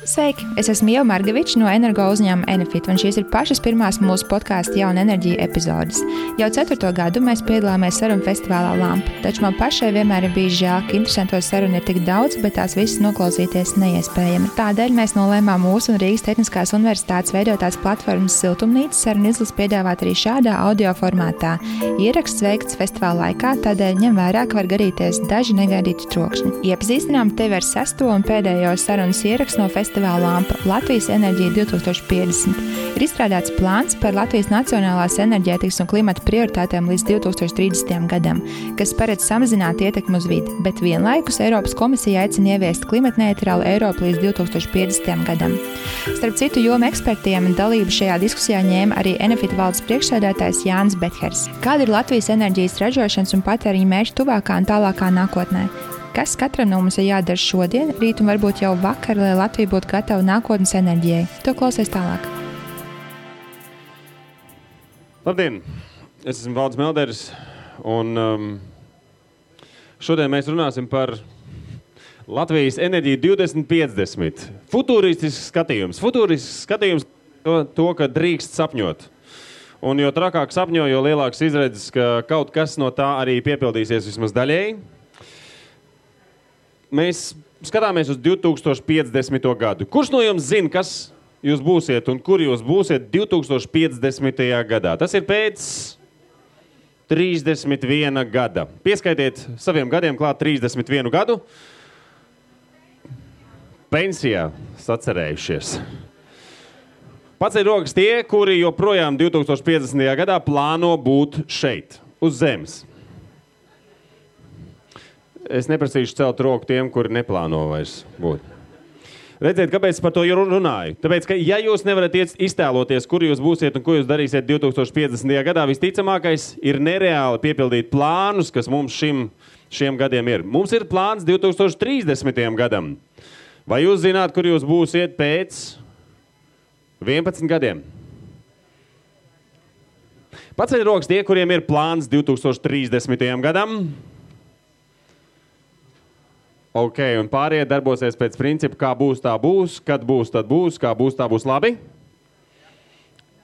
Sveiki! Es esmu Ieva Margeviča no energo uzņēmuma Enefit, un šīs ir pašas pirmās mūsu podkāstu Jauna enerģija epizodes. Jau 4. gadu mēs piedalāmies sarunu festivālā Lampa, taču man pašai vienmēr ir bijis žēl, ka interesanto sarunu ir tik daudz, bet tās visas noklausīties neiespējami. Tādēļ mēs nolēmām mūsu un Rīgas Tehniskās universitātes veidotās platformas Siltumnīca sarunu izlases piedāvāt arī šādā audio formātā. Ieraksts veikts festivāla laikā, tādēļ ņem vērā, ka var gadīties daži negaidīti trokšņi. Iepazīstinām tevi ar 6. un pēdējo sarunas ierakstu no festivāla Lampa Latvijas enerģija 2050. Ir izstrādāts plāns par Latvijas nacionālās enerģētikas un klimata prioritātēm līdz 2030. gadam, kas paredz samazināt ietekmi uz vidi, bet vienlaikus Eiropas komisija aicina ieviest klimatneitrālu Eiropu līdz 2050. gadam. Starp citu jomu ekspertiem dalību šajā diskusijā ņēma arī Enefit valdes priekšsēdētājs Jānis Bethers. Kāda ir Latvijas enerģijas ražošanas un patēriņa mērķi tuvākā un tālākā nākotnē? Kas katram no mums ir jādara šodien, rīt un varbūt jau vakar, lai Latvija būtu gatava nākotnes enerģijai? To klausies tālāk. Labdien! Es esmu Valdis Melders, un šodien mēs runāsim par Latvijas enerģiju 2050. Futuristisks skatījums. Futuristisks skatījums to, ka drīkst sapņot. Un jo trakāk sapņo, jo lielāks izredzes, ka kaut kas no tā arī piepildīsies vismaz daļēji. Mēs skatāmies uz 2050. gadu. Kurš no jums zina, kas jūs būsiet un kur jūs būsiet 2050. gadā? Tas ir pēc 31 gada. Pieskaitiet saviem gadiem klāt 31 gadu. Pensijā sacerējušies. Paceļ rokas tie, kuri joprojām 2050. gadā plāno būt šeit, uz zemes. Es neprasīšu celt roku tiem, kuri neplāno vairs būt. Redziet, kāpēc par to runāju? Tāpēc, ka ja jūs nevarat iztēloties, kur jūs būsiet un ko jūs darīsiet 2050. gadā, visticamākais ir nereāli piepildīt plānus, kas mums šiem gadiem ir. Mums ir plāns 2030. gadam. Vai jūs zināt, kur jūs būsiet pēc 11 gadiem? Paceļ rokas tie, kuriem ir plāns 2030. gadam. Ok, un pārējie darbosies pēc principa, kā būs, tā būs, kad būs, tad būs, kā būs, tā būs labi.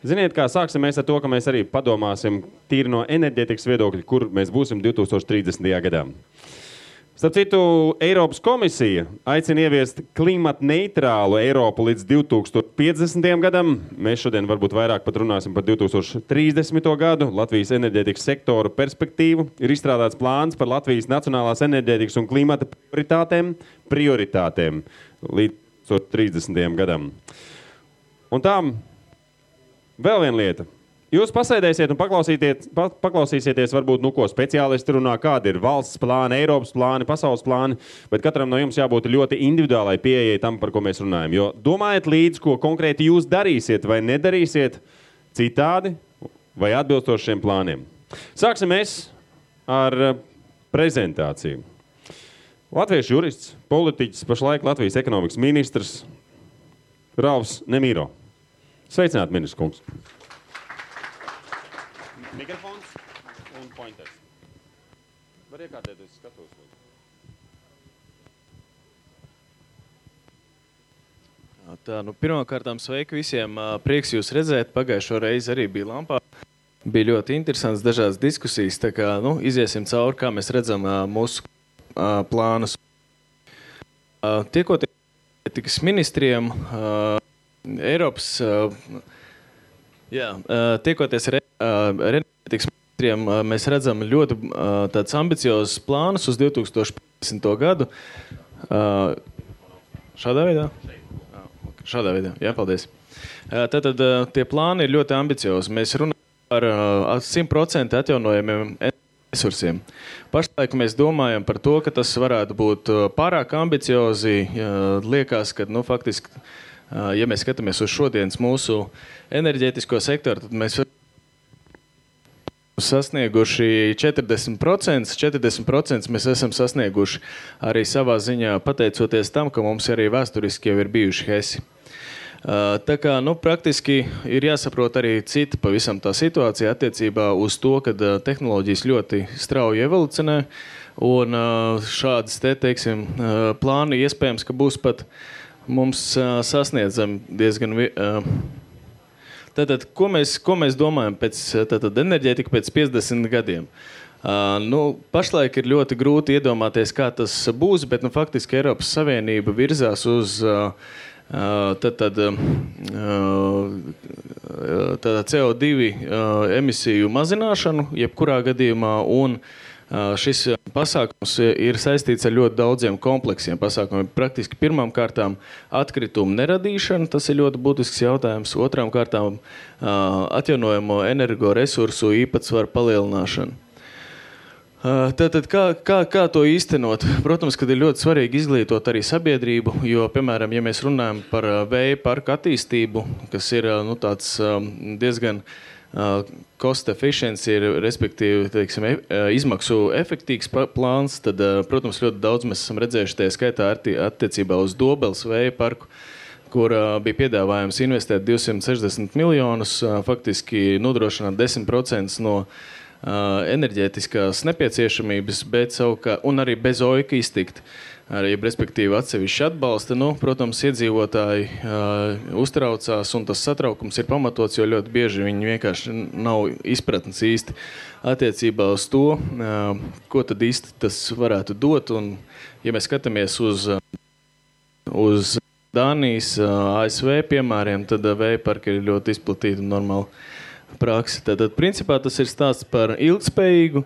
Ziniet, kā sāksim mēs ar to, ka mēs arī padomāsim tīri no enerģētikas viedokļa, kur mēs būsim 2030. gadā. Starp citu, Eiropas komisija aicina ieviest klimatneitrālu Eiropu līdz 2050. gadam. Mēs šodien varbūt vairāk pat runāsim par 2030. gadu. Latvijas enerģētikas sektoru perspektīvu ir izstrādāts plāns par Latvijas nacionālās enerģētikas un klimata prioritātēm līdz 2030. gadam. Un tām vēl viena lieta. Jūs pasēdēsiet un paklausīsieties varbūt, ko speciālisti runā, kādi ir valsts plāni, Eiropas plāni, pasaules plāni, bet katram no jums jābūt ļoti individuālai pieejai tam, par ko mēs runājam. Jo domājiet līdz, ko konkrēti jūs darīsiet vai nedarīsiet citādi vai atbilstoši šiem plāniem. Sāksim mēs ar prezentāciju. Latviešu jurists, politiķis, pašlaik Latvijas ekonomikas ministrs Ralfs Nemīro. Sveicināt, ministrs kungs! Mikrofons un pointers. Var iekārtēt, es skatos. Tā, pirmkārtām sveiki visiem. Prieks jūs redzēt. Pagājušo reizi arī bija Lampā. Bija ļoti interesants dažādas diskusijas. Tā kā, iziesim cauri, kā mēs redzam mūsu plānus. Tiekoties ministriem, Eiropas... tiekoties ar enerģētikas ministriem, mēs redzam ļoti tāds ambiciozus plānus uz 2050. gadu. Šādā veidā? Šādā veidā, jā, paldies. Tātad tie plāni ir ļoti ambiciozi. Mēs runājam par 100% atjaunojumiem resursiem. Pašlaik mēs domājam par to, ka tas varētu būt pārāk ambiciozi. Liekas, ka, faktiski, ja mēs skatāmies uz šodienas mūsu enerģētisko sektoru, tad mēs sasnieguši 40%. 40% mēs esam sasnieguši arī savā ziņā pateicoties tam, ka mums arī vēsturiski jau ir bijuši HESI. Tā kā, praktiski ir jāsaprot arī cita pavisam tā situācija attiecībā uz to, ka tehnoloģijas ļoti strauji evolucionē un šādas teiksim, plāni iespējams, ka būs pat mums sasniedzam diezgan... Tātad, ko mēs domājam pēc enerģētika pēc 50 gadiem? Pašlaik ir ļoti grūti iedomāties, kā tas būs, bet faktiski Eiropas Savienība virzās uz CO2 emisiju mazināšanu, jebkurā gadījumā, un šis pasākums ir saistīts ar ļoti daudziem kompleksiem pasākumiem. Praktiski pirmām kārtām atkritumu neradīšana, tas ir ļoti būtisks jautājums. Otrām kārtām atjaunojamo energoresursu īpatsvaru palielināšana. Tātad, kā to īstenot? Protams, kad ir ļoti svarīgi izglītot arī sabiedrību, jo, piemēram, ja mēs runājam par vēja parku attīstību, kas ir tāds diezgan cost efficiency, respektīvi, teiksim, izmaksu efektīgs plāns, tad, protams, ļoti daudz mēs esam redzējuši tie skaitā attiecībā uz Dobeles vēja parku, kur bija piedāvājums investēt 260 miljonus, faktiski nodrošināt 10% no enerģētiskās nepieciešamības, un arī bez OIK iztikt, respektīvi atsevišķi atbalsta. Protams, iedzīvotāji uztraucās, un tas satraukums ir pamatots, jo ļoti bieži viņi vienkārši nav izpratnes īsti attiecībā uz to, ko tad īsti tas varētu dot. Un, ja mēs skatāmies uz Dānijas, ASV piemēriem, tad vēja parki ir ļoti izplatīti un normāli praksi. Tātad, principā, tas ir stāsts par ilgspējīgu,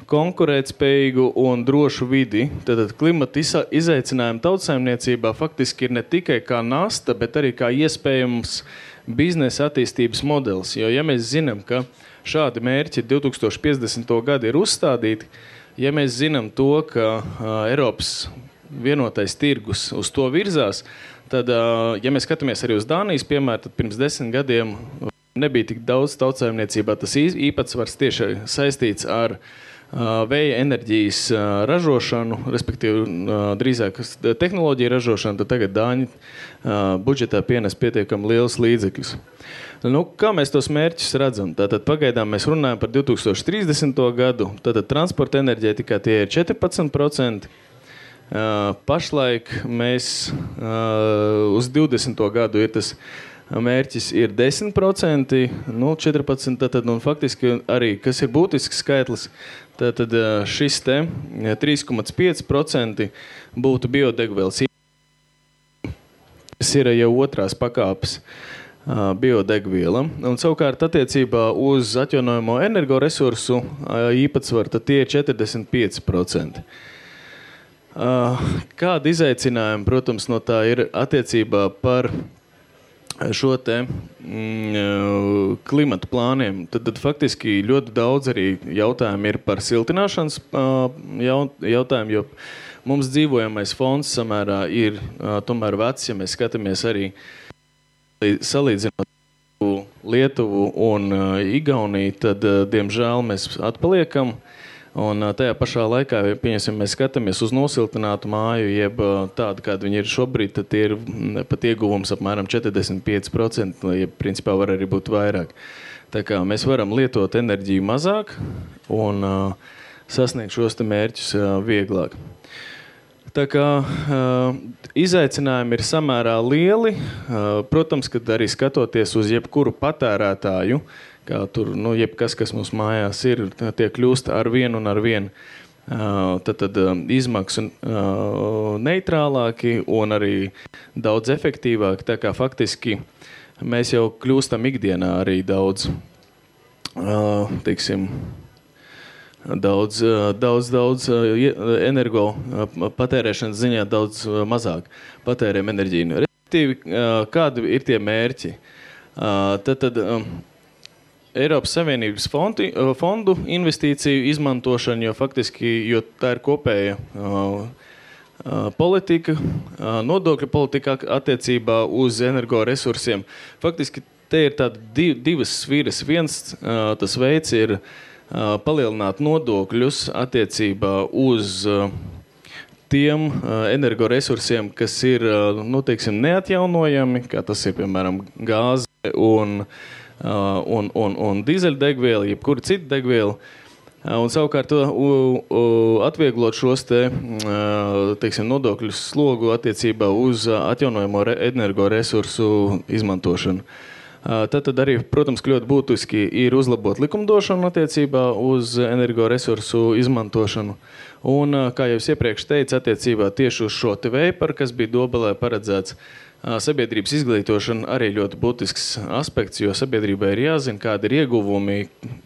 konkurētspējīgu un drošu vidi. Tātad, klimata izaicinājumi tautsaimniecībā faktiski ir ne tikai kā nasta, bet arī kā iespējams biznesa attīstības modelis. Jo, ja mēs zinām, ka šādi mērķi 2050. gadu ir uzstādīti, ja mēs zinām to, ka Eiropas vienotais tirgus uz to virzās, tad, ja mēs skatāmies arī uz Dānijas piemēru, tad pirms 10 gadiem nebija tik daudz tautsaimniecībā. Tas īpatsvars tieši saistīts ar vēja enerģijas ražošanu, respektīvi drīzāk tehnoloģiju ražošanu, tad tagad Dāņi budžetā pienes pietiekami liels līdzekļus. Kā mēs tos mērķus redzam? Tātad pagaidām mēs runājam par 2030. gadu, tātad transporta enerģētikā tie ir 14%. Pašlaik mēs uz 20. gadu ir tas mērķis ir 10%, 14%, tad, faktiski arī, kas ir būtisks skaitlis, tad šis te 3,5% būtu biodegvielas. Tas ir jau otrās pakāpes biodegviela. Un savukārt attiecībā uz atjaunojamo energoresursu īpatsvaru, tad tie ir 45%. Kāda izaicinājuma, protams, no tā ir attiecībā par šo te klimatu plāniem, tad faktiski ļoti daudz arī jautājumi ir par siltināšanas jautājumu, jo mums dzīvojamais fonds samērā ir tomēr vecs, ja mēs skatāmies arī salīdzinot Lietuvu un Igauniju, tad, diemžēl, mēs atpaliekam. Un tajā pašā laikā, mēs skatāmies uz nosiltinātu māju, jeb tādu, kāda viņi ir šobrīd, tad tie ir pat ieguvums apmēram 45%, jeb principā var arī būt vairāk. Tā kā mēs varam lietot enerģiju mazāk un sasniegt šos te mērķus vieglāk. Tā kā izaicinājumi ir samērā lieli, protams, kad arī skatoties uz jebkuru patērētāju, kā tur, jebkas, kas mums mājās ir, tie kļūst ar vienu un ar vienu. Tad izmaksu neitrālāki un arī daudz efektīvāki. Tā kā faktiski mēs jau kļūstam ikdienā arī daudz, daudz energo patērēšanas ziņā daudz mazāk patērēm enerģiju. Respektīvi, kādi ir tie mērķi? Tad Eiropas Savienības fondu investīciju izmantošana, jo faktiski, jo tā ir kopēja politika, nodokļu politika attiecībā uz energoresursiem. Faktiski te ir tādi divas sviras. Viens tas veids ir palielināt nodokļus attiecībā uz tiem energoresursiem, kas ir, neatjaunojami, kā tas ir, piemēram, gāze un dīzeļdegviela, jebkura cita degviela. Un savukārt atvieglot šos teiksim, nodokļu slogu attiecībā uz atjaunojamo energoresursu izmantošanu. Tad arī, protams, ļoti būtiski ir uzlabot likumdošanu attiecībā uz energoresursu izmantošanu. Un, kā jau es iepriekš teicu, attiecībā tieši uz šo te veiparu, kas bija Dobelē paredzēts, sabiedrības izglītošana arī ļoti būtisks aspekts, jo sabiedrībai ir jāzina, kādi ir ieguvumi,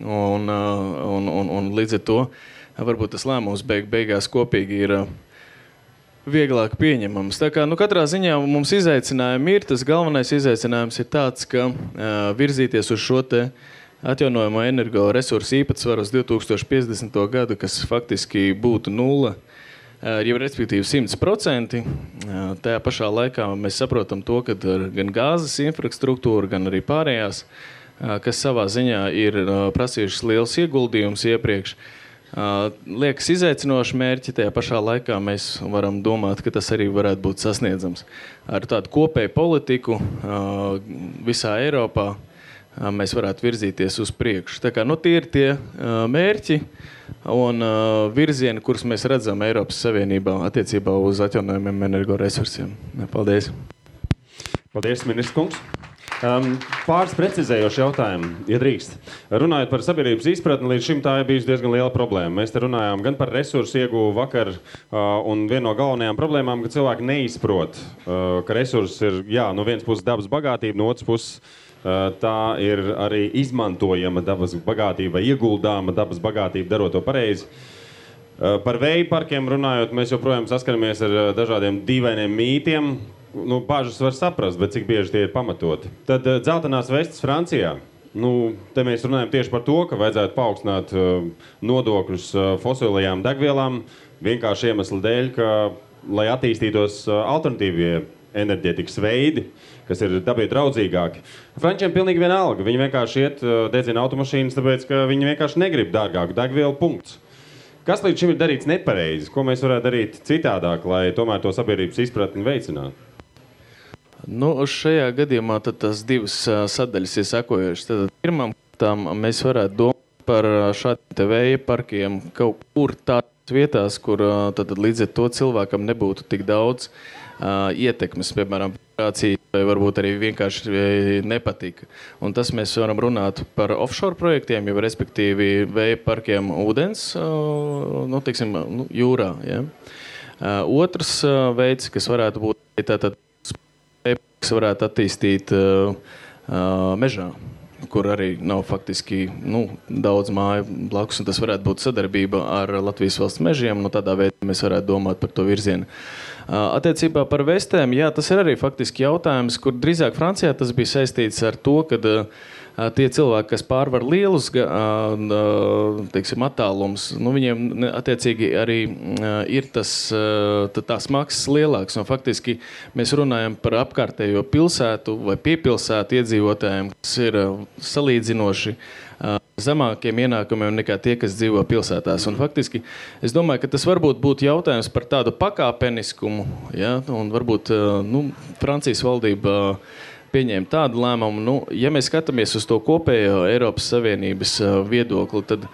un līdz ar to varbūt tas lēmums beigās kopīgi ir vieglāk pieņemams. Tā kā, katrā ziņā mums izaicinājumi ir, tas galvenais izaicinājums ir tāds, ka virzīties uz šo te atjaunojamo energoresursu īpatsvaru uz 2050. gadu, kas faktiski būtu 0, jau respektīvi 100%. Tajā pašā laikā mēs saprotam to, ka gan gāzes infrastruktūra, gan arī pārējās, kas savā ziņā ir prasījušas liels ieguldījums iepriekš, liekas izaicinoši mērķi, tajā pašā laikā mēs varam domāt, ka tas arī varētu būt sasniedzams. Ar tādu kopēju politiku visā Eiropā mēs varētu virzīties uz priekšu. Tā kā, tie ir tie mērķi un virzieni, kurus mēs redzam Eiropas Savienībā attiecībā uz atjaunojumiem energoresursiem. Paldies. Paldies, ministrs kungs. Pāris precizējoši jautājumi, ja drīkst. Runājot par sabiedrības izpratni, līdz šim tā ir bijusi diezgan liela problēma. Mēs te runājām gan par resursu ieguvu vakar, un viena no galvenajām problēmām, ka cilvēki neizprot, ka resursi ir, no vienas puses dabas bagātība, no otras puses tā ir arī izmantojama dabas bagātība, ieguldāma dabas bagātība, darot to pareizi. Par vēju parkiem runājot, mēs joprojām saskaramies ar dažādiem dīvainiem mītiem. Bāžas var saprast, bet cik bieži tie ir pamatoti. Tad dzeltenās vestes Francijā. Te mēs runājam tieši par to, ka vajadzētu paaugstināt nodokļus fosilajām degvielām vienkārši iemeslu dēļ, ka, lai attīstītos alternatīvie enerģētikas veidi, kas ir dabai draudzīgāki. Frančiem pilnīgi vienalga. Viņi vienkārši iet dedzina automašīnas, tāpēc, ka viņi vienkārši negrib dārgāku degvielu, punkts. Kas līdz šim ir darīts nepareizi? Ko mēs varētu darīt citādāk, lai tomēr to sabiedrības izpratni veicinātu? Šajā gadījumā tad tās divas sadaļas ir sekojušas. Tad pirmām kārtām mēs varētu domāt par šādiem te vēja parkiem kaut kur tādās vietās, kur tad līdz ar to cilvēkam nebūtu tik daudz ietekmes, piemēram, vai varbūt arī vienkārši nepatika. Un tas mēs varam runāt par offshore projektiem, jau respektīvi vēja parkiem ūdens, jūrā. Ja? Otrs veids, kas varētu būt, tātad kas varētu attīstīt mežā, kur arī nav faktiski daudz māju blakus, un tas varētu būt sadarbība ar Latvijas valsts mežiem, tādā veidā mēs varētu domāt par to virzienu. Attiecībā par vestēm, tas ir arī faktiski jautājums, kur drīzāk Francijā tas bija saistīts ar to, kad tie cilvēki, kas pārvar lielus attālums, viņiem attiecīgi arī ir tās maksas lielāks. Un faktiski mēs runājam par apkārtējo pilsētu vai piepilsētu iedzīvotājiem, kas ir salīdzinoši zemākiem ienākumiem nekā tie, kas dzīvo pilsētās. Un faktiski es domāju, ka tas varbūt būtu jautājums par tādu pakāpeniskumu, un varbūt Francijas valdība pieņēma tādu lēmumu. Ja mēs skatāmies uz to kopējo Eiropas Savienības viedokli, tad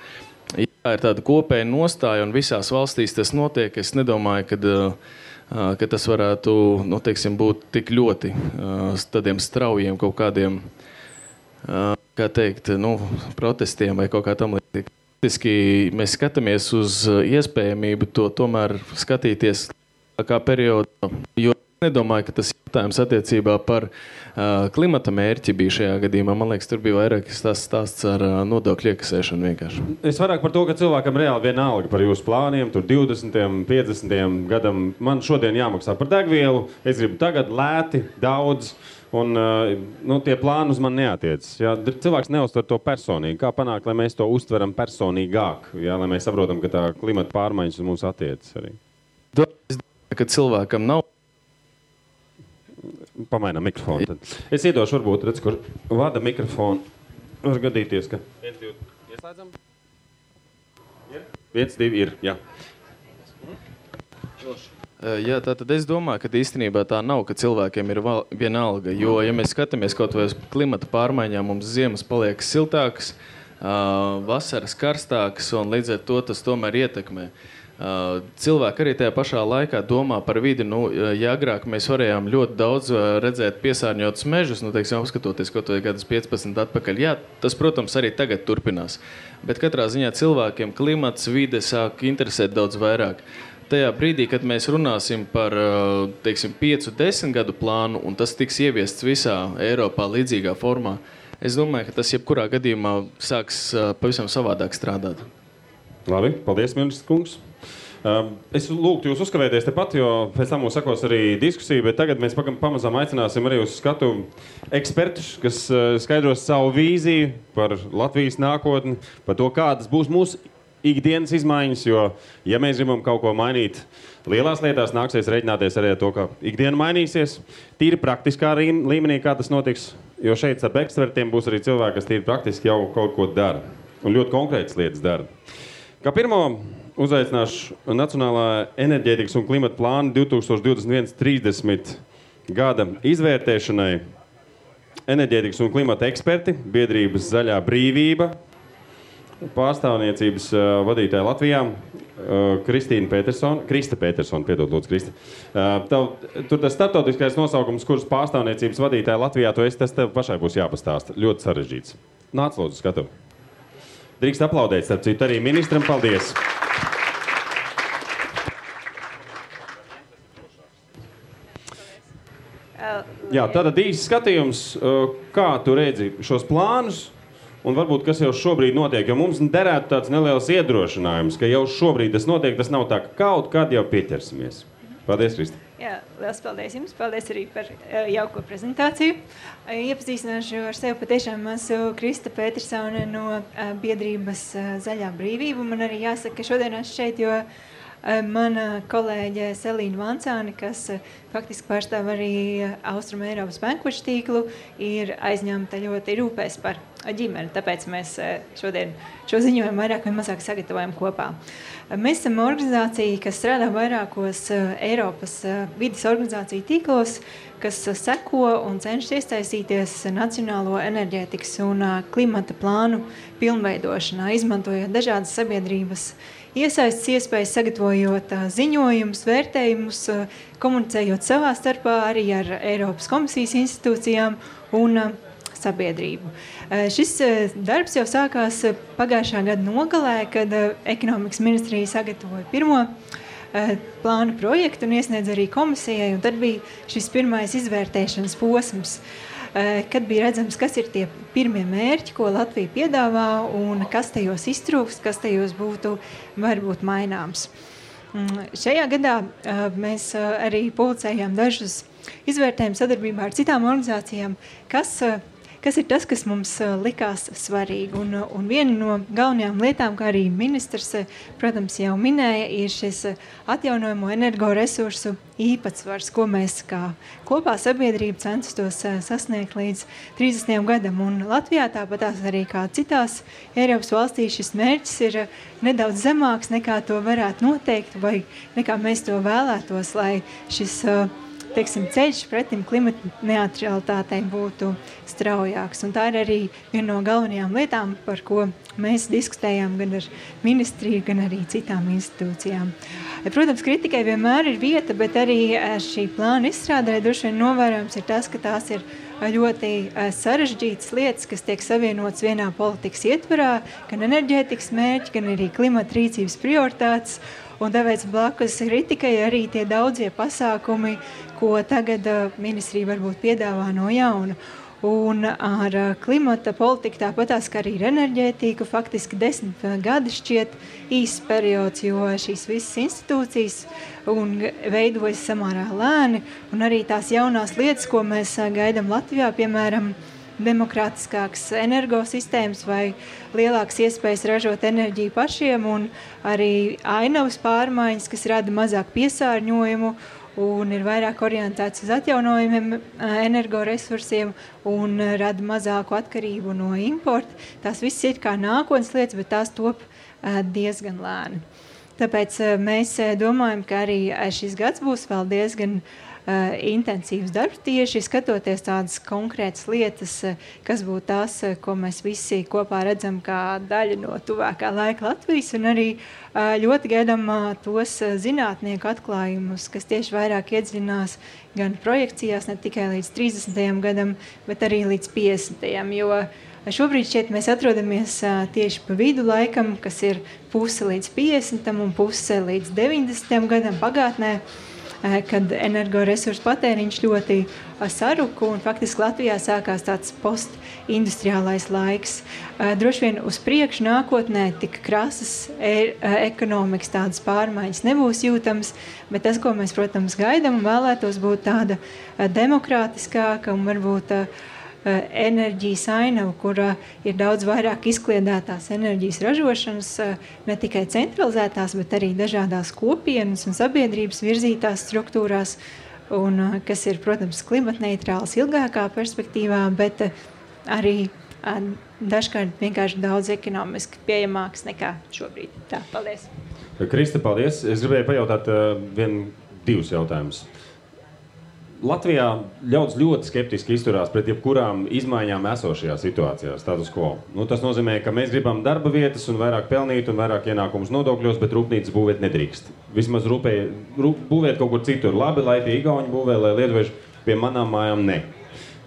ir tāda kopēja nostāja un visās valstīs tas notiek. Es nedomāju, ka tas varētu būt tik ļoti tādiem straujiem kaut kādiem protestiem vai kaut kā tam līdzīgi. Faktiski mēs skatāmies uz iespējamību to tomēr skatīties kā periodu, jo nedomāju, ka tas jautājums attiecībā par klimata mērķi bija šajā gadījumā. Man liekas, tur bija vairāk stāsts ar nodokļu iekasēšanu vienkārši. Es vairāk par to, ka cilvēkam reāli vienalga par jūsu plāniem, tur 20, 50 gadam. Man šodien jāmaksā par degvielu, es gribu tagad lēti, daudz, un tie plāni uz man neatiecas. Cilvēks neuztver to personīgi. Kā panākt, lai mēs to uztveram personīgāk, lai mēs saprotam, ka tā klimata pārmaiņas uz mums attiecas arī? Es domāju, ka cilvēkam nav pamainām mikrofonu. Tad. Es iedošu, varbūt, redz, kur vada mikrofonu. Var gadīties, ka... 1, 2, ieslēdzam? 1, 2, ir, jā. Tātad es domāju, ka īstenībā tā nav, ka cilvēkiem ir vienalga, jo, ja mēs skatāmies kaut vai uz klimata pārmaiņām, mums ziemas paliek siltākas, vasaras karstākas, un līdz ar to tas tomēr ietekmē. Cilvēki arī tajā pašā laikā domā par vidi. Ja agrāk mēs varējām ļoti daudz redzēt piesārņotus mežus, teiksim, apskatoties kaut vai gadus 15 atpakaļ, jā, tas, protams, arī tagad turpinās. Bet katrā ziņā cilvēkiem klimats, vide sāk interesēt daudz vairāk. Tajā brīdī, kad mēs runāsim par, teiksim, 5-10 gadu plānu, un tas tiks ieviests visā Eiropā līdzīgā formā, es domāju, ka tas jebkurā gadījumā sāks pavisam savādāk strādāt. Labi, paldies, ministrs kungs. Es lūgtu jūs uzkavēties tepat, jo pēc tam mums sakos arī diskusija, bet tagad mēs pamazām aicināsim arī uz skatu ekspertus, kas skaidros savu vīziju par Latvijas nākotni, par to, kādas būs mūsu ikdienas izmaiņas, jo, ja mēs gribam kaut ko mainīt lielās lietās, nāksies reiķināties arī ar to, ka ikdiena mainīsies. Tīri praktiskā līmenī, kā tas notiks, jo šeit ar ekspertiem būs arī cilvēki, kas tīri praktiski jau kaut ko dara un ļoti konkrētas lietas dara. Kā pirmo uzaicināšu Nacionālā enerģētikas un klimata plāna 2021-30 gada izvērtēšanai enerģētikas un klimata eksperti, biedrības Zaļā brīvība, pārstāvniecības vadītāja Latvijā, Krista Petersona, piedod, lūdzu, Krista. Tur tas starptautiskais nosaukums, kuras pārstāvniecības vadītāja Latvijā, tas tev pašai būs jāpastāsta. Ļoti sarežģīts. Nāc, lūdzu, skatu. Drīkst aplaudēt, starp citu, arī ministram. Paldies! Jā, tātad īsts skatījums, kā tu redzi šos plānus un varbūt kas jau šobrīd notiek, jo mums derētu tāds neliels iedrošinājums, ka jau šobrīd tas notiek, tas nav tā, ka kaut kad jau pieķersimies. Paldies, Krista. Jā, liels paldies jums. Paldies arī par jauko prezentāciju. Iepazīstināšu ar sevi patiešām esmu Krista Petersone no biedrības Zaļā brīvība. Man arī jāsaka, ka šodien esmu šeit, jo mana kolēģe Selīna Vancāne, kas faktiski pārstāv arī Austrum Eiropas bankošu tīklu, ir aizņemta ļoti rūpēs par ģimeni. Tāpēc mēs šodien šo ziņojumu vairāk vai mazāk sagatavojam kopā. Mēs esam organizācija, kas strādā vairākos Eiropas vides organizāciju tīklos, kas seko un cenšas iesaistīties nacionālo enerģētikas un klimata plānu pilnveidošanā, izmantojot dažādas sabiedrības iesaistas iespējas, sagatavojot ziņojumus, vērtējumus, komunicējot savā starpā arī ar Eiropas komisijas institūcijām un sabiedrību. Šis darbs jau sākās pagājušā gada nogalē, kad ekonomikas ministrija sagatavoja pirmo plānu projektu un iesniedz arī komisijai, un tad bija šis pirmais izvērtēšanas posms, kad bija redzams, kas ir tie pirmie mērķi, ko Latvija piedāvā un kas tajos iztrūkst, kas tajos būtu varbūt maināms. Šajā gadā mēs arī publicējām dažus izvērtējumus sadarbībā ar citām organizācijām, kas ir tas, kas mums likās svarīgi. Un viena no galvenajām lietām, kā arī ministrs, protams, jau minēja, ir šis atjaunojamo energoresursu īpatsvars, ko mēs kā kopā sabiedrība censtos sasniegt līdz 30. gadam. Un Latvijā tāpatās arī kā citās Eiropas valstīs šis mērķis ir nedaudz zemāks, nekā to varētu noteikt, vai nekā mēs to vēlētos, lai šis ceļš pretim klimata neutralitātei būtu straujāks. Un tā ir arī viena no galvenajām lietām, par ko mēs diskutējām gan ar ministriju, gan arī citām institūcijām. Protams, kritikai vienmēr ir vieta, bet arī šī plāna izstrādē droši vien novērojams ir tas, ka tās ir ļoti sarežģītas lietas, kas tiek savienotas vienā politikas ietvarā, gan enerģētikas mērķi, gan arī klimata rīcības prioritātes. Un tāpēc blakus kritikai arī tie daudzie pasākumi, ko tagad ministrija varbūt piedāvā no jauna. Un ar klimata politiku tāpatās, kā arī ar enerģētiku, faktiski 10 gadi šķiet īsts periods, jo šīs visas institūcijas veidojas samērā lēni, un arī tās jaunās lietas, ko mēs gaidām Latvijā, piemēram, demokrātiskākas energosistēmas vai lielākas iespējas ražot enerģiju pašiem, un arī ainavas pārmaiņas, kas rada mazāk piesārņojumu un ir vairāk orientēts uz atjaunojumiem energoresursiem un rada mazāku atkarību no importa. Tās viss ir kā nākotnes lietas, bet tās top diezgan lēni. Tāpēc mēs domājam, ka arī šis gads būs vēl diezgan intensīvs darbs tieši skatoties tādas konkrētas lietas, kas būtu tās, ko mēs visi kopā redzam kā daļa no tuvākā laika Latvijas, un arī ļoti gaidām tos zinātnieku atklājumus, kas tieši vairāk iedziļinās gan projekcijās, ne tikai līdz 30. gadam, bet arī līdz 50. jo šobrīd šķiet mēs atrodamies tieši pa vidu laikam, kas ir puse līdz 50. un puse līdz 90. gadam pagātnē, kad energoresursu patēriņš ļoti saruka un faktiski Latvijā sākās tāds postindustriālais laiks. Droši vien uz priekšu nākotnē tik krasas ekonomikas tādas pārmaiņas nebūs jūtams, bet tas, ko mēs, protams, gaidām un vēlētos būt tāda demokrātiskāka un varbūt enerģijas ainava, kura ir daudz vairāk izkliedētās enerģijas ražošanas, ne tikai centralizētās, bet arī dažādās kopienas un sabiedrības virzītās struktūrās, un kas ir, protams, klimatneitrāls ilgākā perspektīvā, bet arī dažkārt vienkārši daudz ekonomiski pieejamāks nekā šobrīd. Tā, paldies. Krista, paldies. Es gribēju pajautāt divus jautājumus. Latvijā ļaudis ļoti skeptiski izturās pret jebkurām izmaiņām esošajā situācijā, status quo. Tas nozīmē, ka mēs gribam darba vietas un vairāk pelnīt un vairāk ienākumus nodokļos, bet rūpnīcas būvēt nedrīkst. Vismaz būvēt kaut kur citur labi, lai pie igauņu būvē, lai lietuvieši pie manām mājām ne.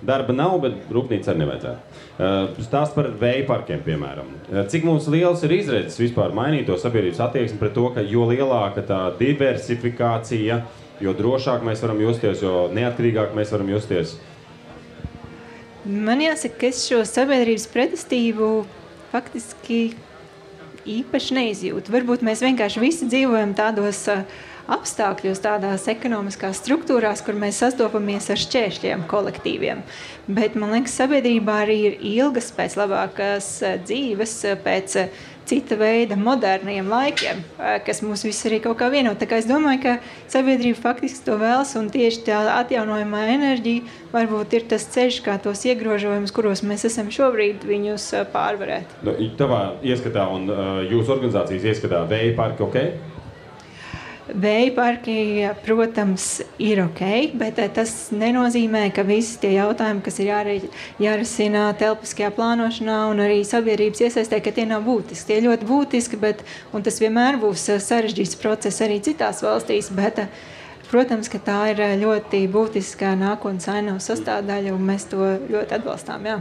Darba nav, bet rūpnīca arī nevajadzētu. Stāst par vēja parkiem, piemēram. Cik mums liels ir izredzes vispār mainīt to sabiedrības attieksmi pret to, ka jo lielāka tā diversifikācija, jo drošāk mēs varam justies, jo neatkarīgāk mēs varam justies? Man jāsaka, ka es šo sabiedrības pretestību faktiski īpaši neizjūtu. Varbūt mēs vienkārši visi dzīvojam tādos apstākļos, tādās ekonomiskās struktūrās, kur mēs sastopamies ar šķēršļiem kolektīviem. Bet, man liekas, sabiedrībā arī ir ilgas pēc labākas dzīves, pēc cita veida moderniem laikiem, kas mūs visus arī kaut kā vieno. Tā kā es domāju, ka sabiedrība faktiski to vēlas, un tieši tā atjaunojamā enerģija varbūt ir tas ceļš, kā tos iegrožojumus, kuros mēs esam šobrīd, viņus pārvarēt. Tavā ieskatā un jūsu organizācijas ieskatā vēja parki ok? Vēja parki, protams, ir ok, bet tas nenozīmē, ka visi tie jautājumi, kas ir jārisina telpiskajā plānošanā un arī sabiedrības iesaistē, ka tie nav būtiski. Tie ļoti būtiski, un tas vienmēr būs sarežģīts process arī citās valstīs, bet, protams, ka tā ir ļoti būtiska nākotnes ainavas sastāvdaļa, un mēs to ļoti atbalstām, jā.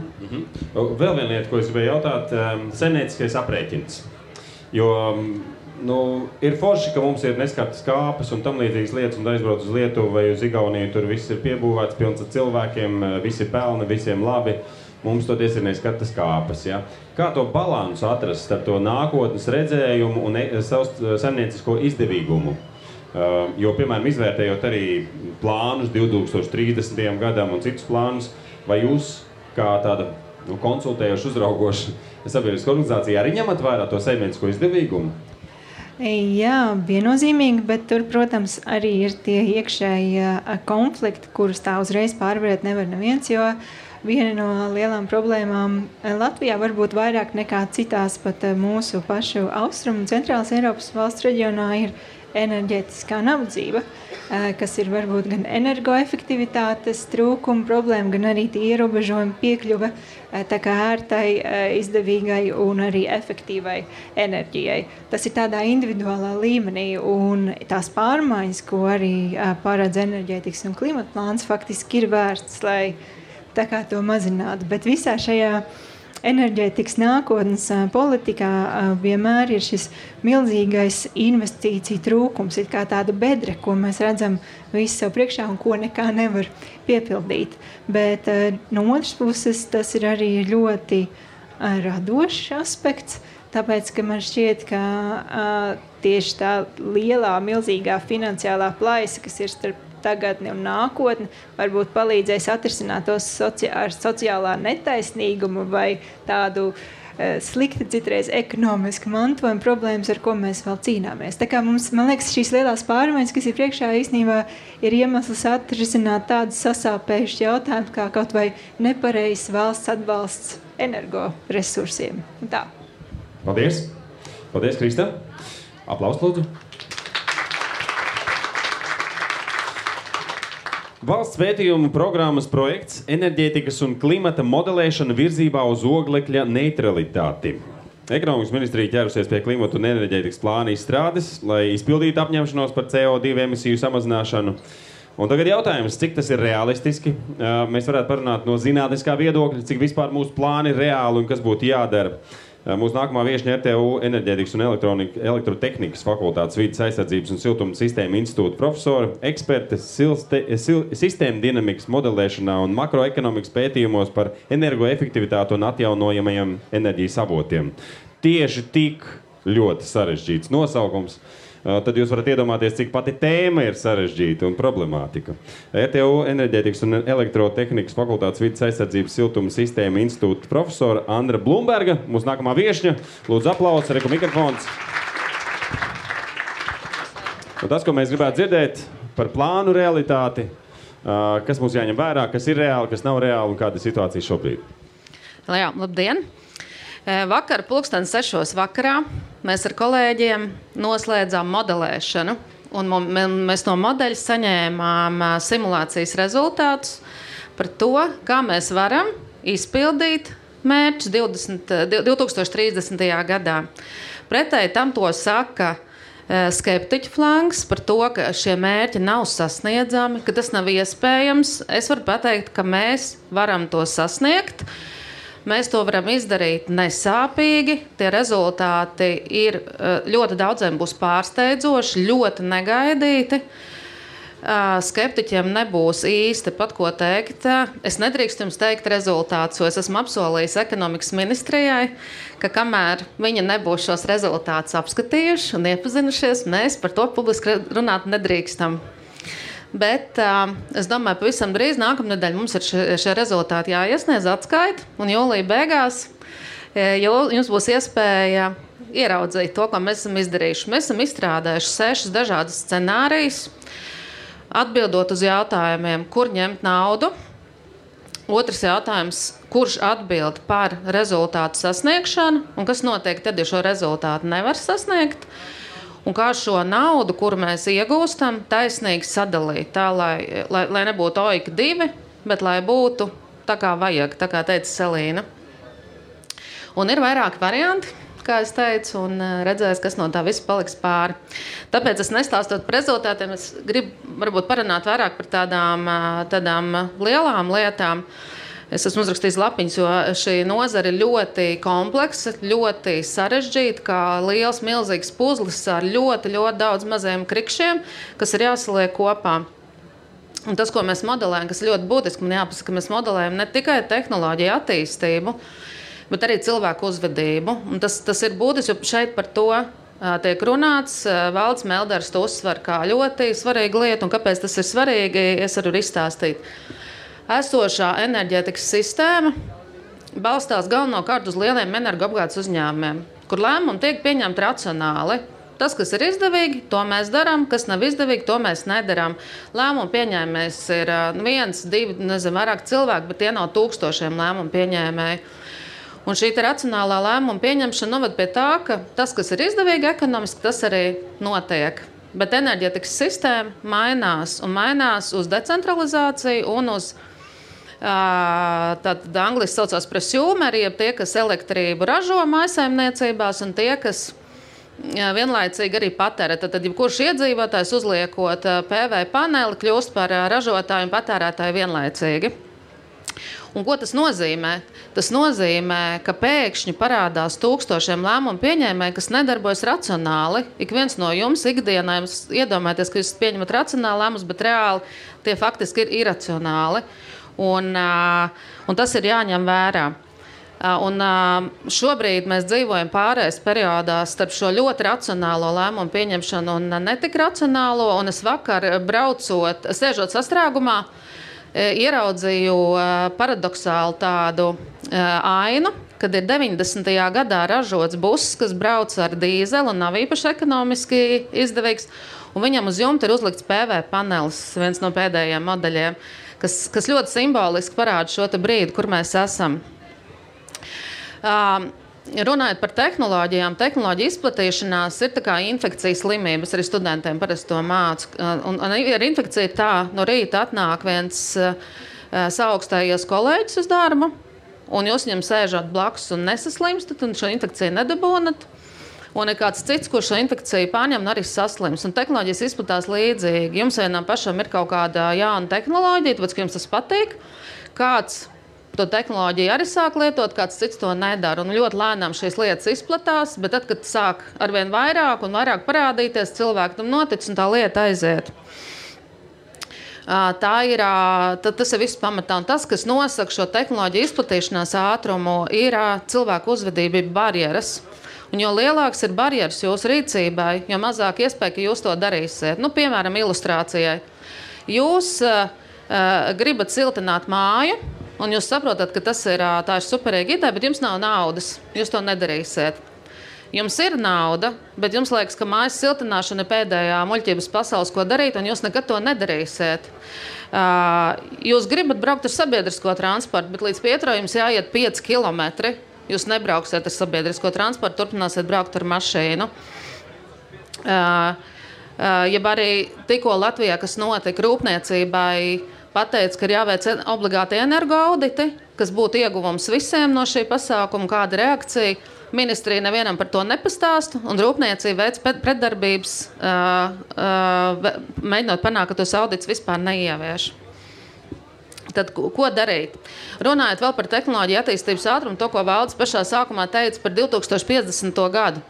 Vēl viena lieta, ko es gribēju jautāt, saimnieciskais aprēķins. Jo ir forši, ka mums ir neskartas kāpes un tam līdzīgas lietas, un aizbrauc uz Lietuvu vai uz Igauniju, tur viss ir piebūvēts, pilns ar cilvēkiem, visi pelna, visiem labi. Mums toties ir neskartas kāpes, ja? Kā to balansu atrast starp to nākotnes redzējumu un saimniecisko izdevīgumu? Jo, piemēram, izvērtējot arī plānus 2030. gadam un citus plānus, vai jūs kā tāda konsultējoša, uzraugoša sabiedriska organizācija arī ņemat vērā to saimniecisko izdevīgumu? Jā, viennozīmīgi, bet tur, protams, arī ir tie iekšēji konflikti, kurus tā uzreiz pārvarēt nevar neviens, jo viena no lielām problēmām Latvijā varbūt vairāk nekā citās pat mūsu pašu austrumu un centrālas Eiropas valsts reģionā ir enerģētiskā nabadzība, kas ir varbūt gan energoefektivitātes trūkuma problēma, gan arī tie ierobežojumi piekļuve tā kā ērtai, izdevīgai un arī efektīvai enerģijai. Tas ir tādā individuālā līmenī, un tās pārmaiņas, ko arī paredz enerģētikas un klimata plāns, faktiski ir vērsts, lai tā kā to mazinātu. Bet visā šajā enerģētikas nākotnes politikā vienmēr ir šis milzīgais investīciju trūkums, ir kā tāda bedre, ko mēs redzam visu sev priekšā un ko nekā nevar piepildīt. Bet no otras puses tas ir arī ļoti radošs aspekts, tāpēc, ka man šķiet, ka tieši tā lielā, milzīgā finansiālā plaisa, kas ir starp tagadni un nākotni, varbūt palīdzēs atrisināt tos sociālā netaisnīgumu vai tādu slikti citreiz ekonomiski mantojuma problēmas, ar ko mēs vēl cīnāmies. Tā kā mums, man liekas, šīs lielās pārmaiņas, kas ir priekšā, īstenībā ir iemesls atrisināt tādus sasāpējušus jautājumus, kā kaut vai nepareizs valsts atbalsts energoresursiem. Tā. Paldies! Paldies, Krista! Aplaus, lūdzu! Valsts pētījumu programmas projekts enerģētikas un klimata modelēšana virzībā uz oglekļa neutralitāti. Ekonomikas ministrija ķērusies pie klimata un enerģētikas plāna izstrādes, lai izpildītu apņemšanos par CO2 emisiju samazināšanu. Un tagad jautājums, cik tas ir realistiski? Mēs varētu parunāt no zinātniskā viedokļa, cik vispār mūsu plāni ir reāli un kas būtu jādara. Mūsu nākamā viešņa RTU enerģētikas un elektrotehnikas fakultātes vides aizsardzības un siltuma sistēma institūta profesora, eksperte sistēma dinamikas modelēšanā un makroekonomikas pētījumos par energoefektivitāti un atjaunojamajiem enerģijas avotiem. Tieši tik ļoti sarežģīts nosaukums. Tad jūs varat iedomāties, cik pati tēma ir sarežģīta un problemātika. RTU enerģētikas un elektrotehnikas fakultātes vides aizsardzības siltuma sistēma institūta profesora Andra Blumberga, mūsu nākamā viešņa. Lūdzu aplausi, reku mikrofons. Un tas, ko mēs gribētu dzirdēt par plānu realitāti, kas mums jāņem vērā, kas ir reāli, kas nav reāli un kāda ir situācija šobrīd. Jā, labdien! Vakar 6:00 vakarā mēs ar kolēģiem noslēdzām modelēšanu, un mēs no modeļa saņēmām simulācijas rezultātus par to, kā mēs varam izpildīt mērķus 2030. gadā. Pretēji tam to saka skeptiķu flangs par to, ka šie mērķi nav sasniedzami, ka tas nav iespējams. Es varu pateikt, ka mēs varam to sasniegt. Mēs to varam izdarīt nesāpīgi. Tie rezultāti ir ļoti daudziem būs pārsteidzoši, ļoti negaidīti. Skeptiķiem nebūs īsti pat ko teikt. Es nedrīkstu jums teikt rezultātus, jo es esmu apsolījis ekonomikas ministrijai, ka kamēr viņi nebūs šos rezultātus apskatījuši un iepazinušies, mēs par to publiski runāt nedrīkstam. Bet es domāju, pavisam drīz nākamnedēļ mums ir šie rezultāti jāiesniedz atskaita, un jūlija beigās jums būs iespēja ieraudzīt to, ko mēs esam izdarījuši. Mēs esam izstrādājuši 6 dažādas scenārijas, atbildot uz jautājumiem, kur ņemt naudu. Otrs jautājums, kurš atbild par rezultātu sasniegšanu, un kas notiek tad, ja šo rezultātu nevar sasniegt. Un kā šo naudu, kuru mēs iegūstam, taisnīgi sadalīt, tā, lai nebūtu oika 2, bet lai būtu tā kā vajag, tā kā teica Selīna. Un ir vairāki varianti, kā es teicu, un redzēs, kas no tā viss paliks pāri. Tāpēc es nestāstot par rezultātiem, es gribu varbūt parunāt vairāk par tādām lielām lietām. Es esmu uzrakstījis lapiņas, jo šī nozara ir ļoti kompleksa, ļoti sarežģīta, kā liels, milzīgs puzlis ar ļoti, ļoti daudz maziem krikšiem, kas ir jāsaliek kopā. Un tas, ko mēs modelējam, kas ļoti būtiski, man jāpasaka, ka mēs modelējam ne tikai tehnoloģiju attīstību, bet arī cilvēku uzvedību. Un tas ir būtiski, jo šeit par to tiek runāts. Valds Melders to uzsver kā ļoti svarīgu lietu, un kāpēc tas ir svarīgi, es varu izstāstīt. Esošā enerģētikas sistēma balstās galvenokārt uz lieliem energoapgādes uzņēmumiem, kur lēmumi tiek pieņemti racionāli. Tas, kas ir izdevīgi, to mēs darām, kas nav izdevīgi, to mēs nedarām. Lēmumu pieņēmējs ir 1, 2, nezinu, vairāk cilvēki, bet tie nav tūkstošiem lēmumu pieņēmēji. Un šī racionālā lēmuma pieņemšana noved pie tā, ka tas, kas ir izdevīgi ekonomiski, tas arī notiek. Bet enerģētikas sistēma mainās uz decentralizāciju un uz tad angliski saucās prosumeri, jeb tie, kas elektrību ražo mājsaimniecībās un tie, kas vienlaicīgi arī patērē. Tad jebkurš iedzīvotājs uzliekot PV paneli kļūst par ražotāju un patērētāju vienlaicīgi. Un ko tas nozīmē? Tas nozīmē, ka pēkšņi parādās tūkstošiem lēmumu pieņēmēji, kas nedarbojas racionāli. Ik viens no jums ikdienā jums iedomājieties, ka jūs pieņemat racionāli lēmumus, bet reāli tie faktiski ir iracionāli. Un tas ir jāņem vērā. Un šobrīd mēs dzīvojam pārējais periodā starp šo ļoti racionālo lēmumu pieņemšanu un netik racionālo. Un es vakar sēžot sastrēgumā, ieraudzīju paradoxālu tādu ainu, kad ir 90. gadā ražots buss, kas brauc ar dīzeli un nav īpaši ekonomiski izdevīgs. Un viņam uz jumta ir uzlikts PV panelis, viens no pēdējiem modeļiem, kas ļoti simboliski parāda šo brīdi, kur mēs esam. runājot par tehnoloģijām, tehnoloģija izplatīšanās ir tā kā infekcijas slimības, arī studentiem parasti to mācu. Un ar infekciju ir tā, no rīta atnāk viens saaugstējies kolēģis uz darbu, un jūs viņam sēžat blakus un nesaslimstat, un šo infekciju nedabūnat. Un ir kāds cits, kurš šo infekciju pārņem un arī saslims. Un tehnoloģijas izplatās līdzīgi. Jums vienam pašam ir kaut kāda jauna tehnoloģija, tāpēc, ka jums tas patīk. Kāds to tehnoloģiju arī sāk lietot, kāds cits to nedara. Un ļoti lēnām šīs lietas izplatās, bet tad, kad sāk arvien vairāk un vairāk parādīties, cilvēki tam notic un tā lieta aiziet. Tas ir viss pamatā. Un tas, kas nosaka šo tehnoloģiju izplatīšanās ātrumu, ir cilvēku uzvedība, barjeras. Un jo lielāks ir barjeras jūsu rīcībai, jo mazāk iespēja, ka jūs to darīsiet. Piemēram, ilustrācijai. Jūs gribat siltināt māju, un jūs saprotat, ka tā ir superīga ideja, bet jums nav naudas. Jūs to nedarīsiet. Jums ir nauda, bet jums liekas, ka mājas siltināšana ir pēdējā muļķības pasaules, ko darīt, un jūs nekad to nedarīsiet. Jūs gribat braukt ar sabiedrisko transportu, bet līdz Pietro jums jāiet 5 kilometri. Jūs nebrauksiet ar sabiedrisko transportu, turpināsiet braukt ar mašīnu. Jeb arī tikko Latvijā, kas notika rūpniecībai, pateica, ka ir jāveic obligāti energoauditi, kas būtu ieguvums visiem no šī pasākuma, kāda reakcija. Ministrija nevienam par to nepastāsta, un rūpniecība veic pretdarbības, mēģinot panākt, ka tos audits vispār neievieš. Tad, ko darīt? Runājot vēl par tehnoloģiju attīstības ātrumu, to, ko Valdis pašā sākumā teica par 2050. gadu.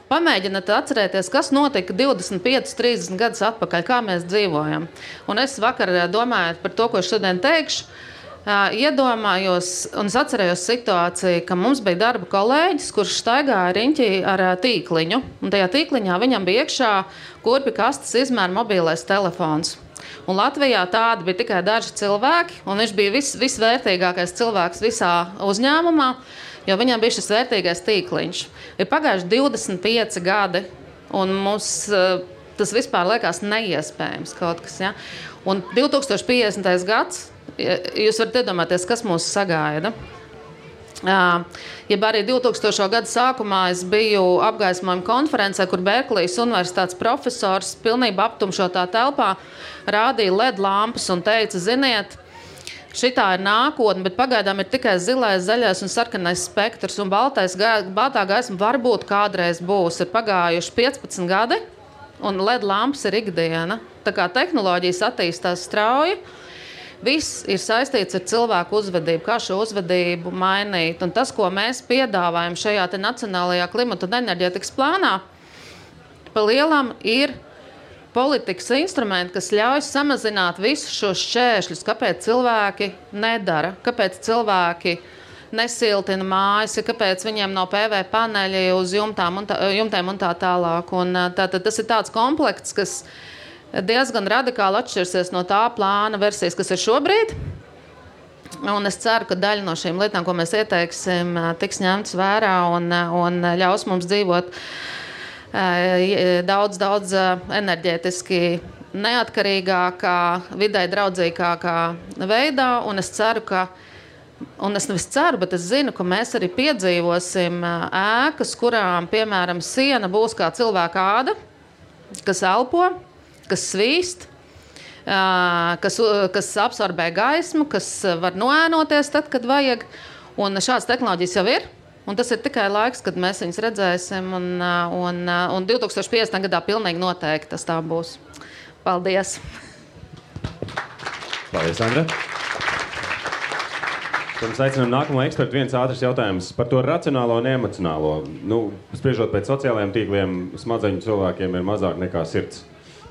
Pamēģiniet atcerēties, kas notika 25-30 gadus atpakaļ, kā mēs dzīvojam. Un es vakar domājot par to, ko es šodien teikšu, iedomājos un es atcerējos situāciju, ka mums bija darba kolēģis, kurš staigāja riņķī ar tīkliņu. Un tajā tīkliņā viņam bija iekšā kurpju kastes izmēra mobilais telefons. Un Latvijā tādi bija tikai daži cilvēki, un viņš bija visvērtīgākais cilvēks visā uzņēmumā, jo viņam bija šis vērtīgais tīkliņš. Ir pagājuši 25 gadi, un mums tas vispār liekas neiespējams kaut kas. Ja? Un 2050. gads, jūs varat iedomāties, kas mūs sagaida. Ja arī 2000. gada sākumā es biju apgaismojuma konferencē, kur Berklijas universitātes profesors pilnībā aptumšotā telpā rādīja LED lampas un teica, ziniet, šitā ir nākotne, bet pagaidām ir tikai zilais, zaļais un sarkanais spektrs, un baltā gaisma varbūt kādreiz būs. Ir pagājuši 15 gadi, un LED lampas ir ikdiena. Tā kā tehnoloģijas attīstās strauji, viss ir saistīts ar cilvēku uzvedību, kā šo uzvedību mainīt. Un tas, ko mēs piedāvājam šajā te nacionālajā klimata un enerģētikas plānā, pa lielam ir politikas instrumenti, kas ļauj samazināt visus šos šķēršļus, kāpēc cilvēki nedara, kāpēc cilvēki nesiltina mājas, kāpēc viņiem nav PV paneļi uz jumtēm un tā tālāk. Un tas ir tāds komplekts, kas diezgan radikāli atšķirsies no tā plāna versijas, kas ir šobrīd. Un es ceru, ka daļa no šīm lietām, ko mēs ieteiksim, tiks ņemts vērā un ļaus mums dzīvot daudz enerģētiski neatkarīgākā, vidē draudzīgākā veidā. Un es ceru, un es nevis ceru, bet es zinu, ka mēs arī piedzīvosim ēkas, kurām, piemēram, siena būs kā cilvēka āda, kas elpo, kas svīst, kas absorbē gaismu, kas var noēnoties tad, kad vajag. Un šādas tehnoloģijas jau ir. Un tas ir tikai laiks, kad mēs viņus redzēsim. Un 2050. gadā pilnīgi noteikti tas tā būs. Paldies! Paldies, Andra! Pirms aicinām nākamo ekspertu, viens ātrs jautājums par to racionālo un emocionālo. Spriežot pēc sociālajiem tīkliem, smadzeņu cilvēkiem ir mazāk nekā sirds.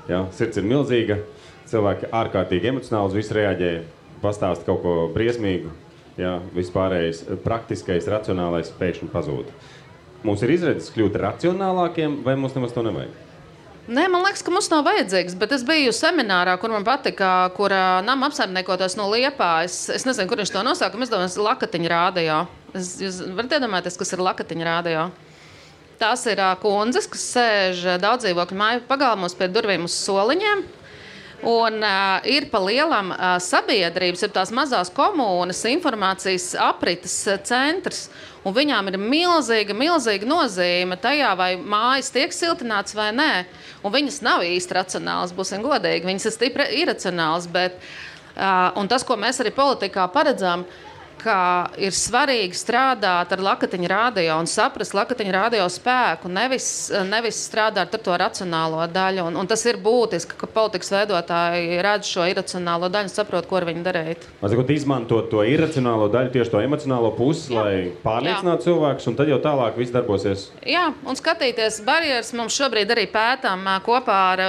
Ja? Sirds ir milzīga, cilvēki ārkārtīgi emocionāli uz visu reaģē, pastāst kaut ko briesmīgu. Ja, vispārējais praktiskais, racionālais pēkšņi pazūd. Mums ir izredzes kļūt racionālākiem, vai mums nemaz to nevajag? Nē, man liekas, ka mums nav vajadzīgs, bet es biju seminārā, kur man patika, kur nama apsaimniekotos no Liepājas. Es nezinu, kur viņš to nosauka, es domāju, Lakatiņa rādio. Jūs varat iedomāties, kas ir Lakatiņa rādio? Tās ir kundzes, kas sēž daudzdzīvokļu māju pagalmos pie durvīm uz soliņiem. Un ir pa lielam sabiedrības, ir tās mazās komunas, informācijas aprites centrs. Un viņām ir milzīga nozīme tajā, vai mājas tiek siltināts vai nē. Un viņas nav īsti racionālas, būsim godīgi. Viņas ir stipri iracionālas. Un tas, ko mēs arī politikā paredzam, ka ir svarīgi strādāt ar Lakatiņu radio un saprast Lakatiņu radio spēku, nevis strādāt ar to racionālo daļu. Un tas ir būtiski, ka politikas veidotāji redz šo iracionālo daļu un saprot, ko ar viņu darīt. Izmantot to iracionālo daļu, tieši to emocionālo pusi, lai pārliecinātu cilvēkus, un tad jau tālāk viss darbosies. Jā, un skatīties barjeras. Mums šobrīd arī pētām kopā ar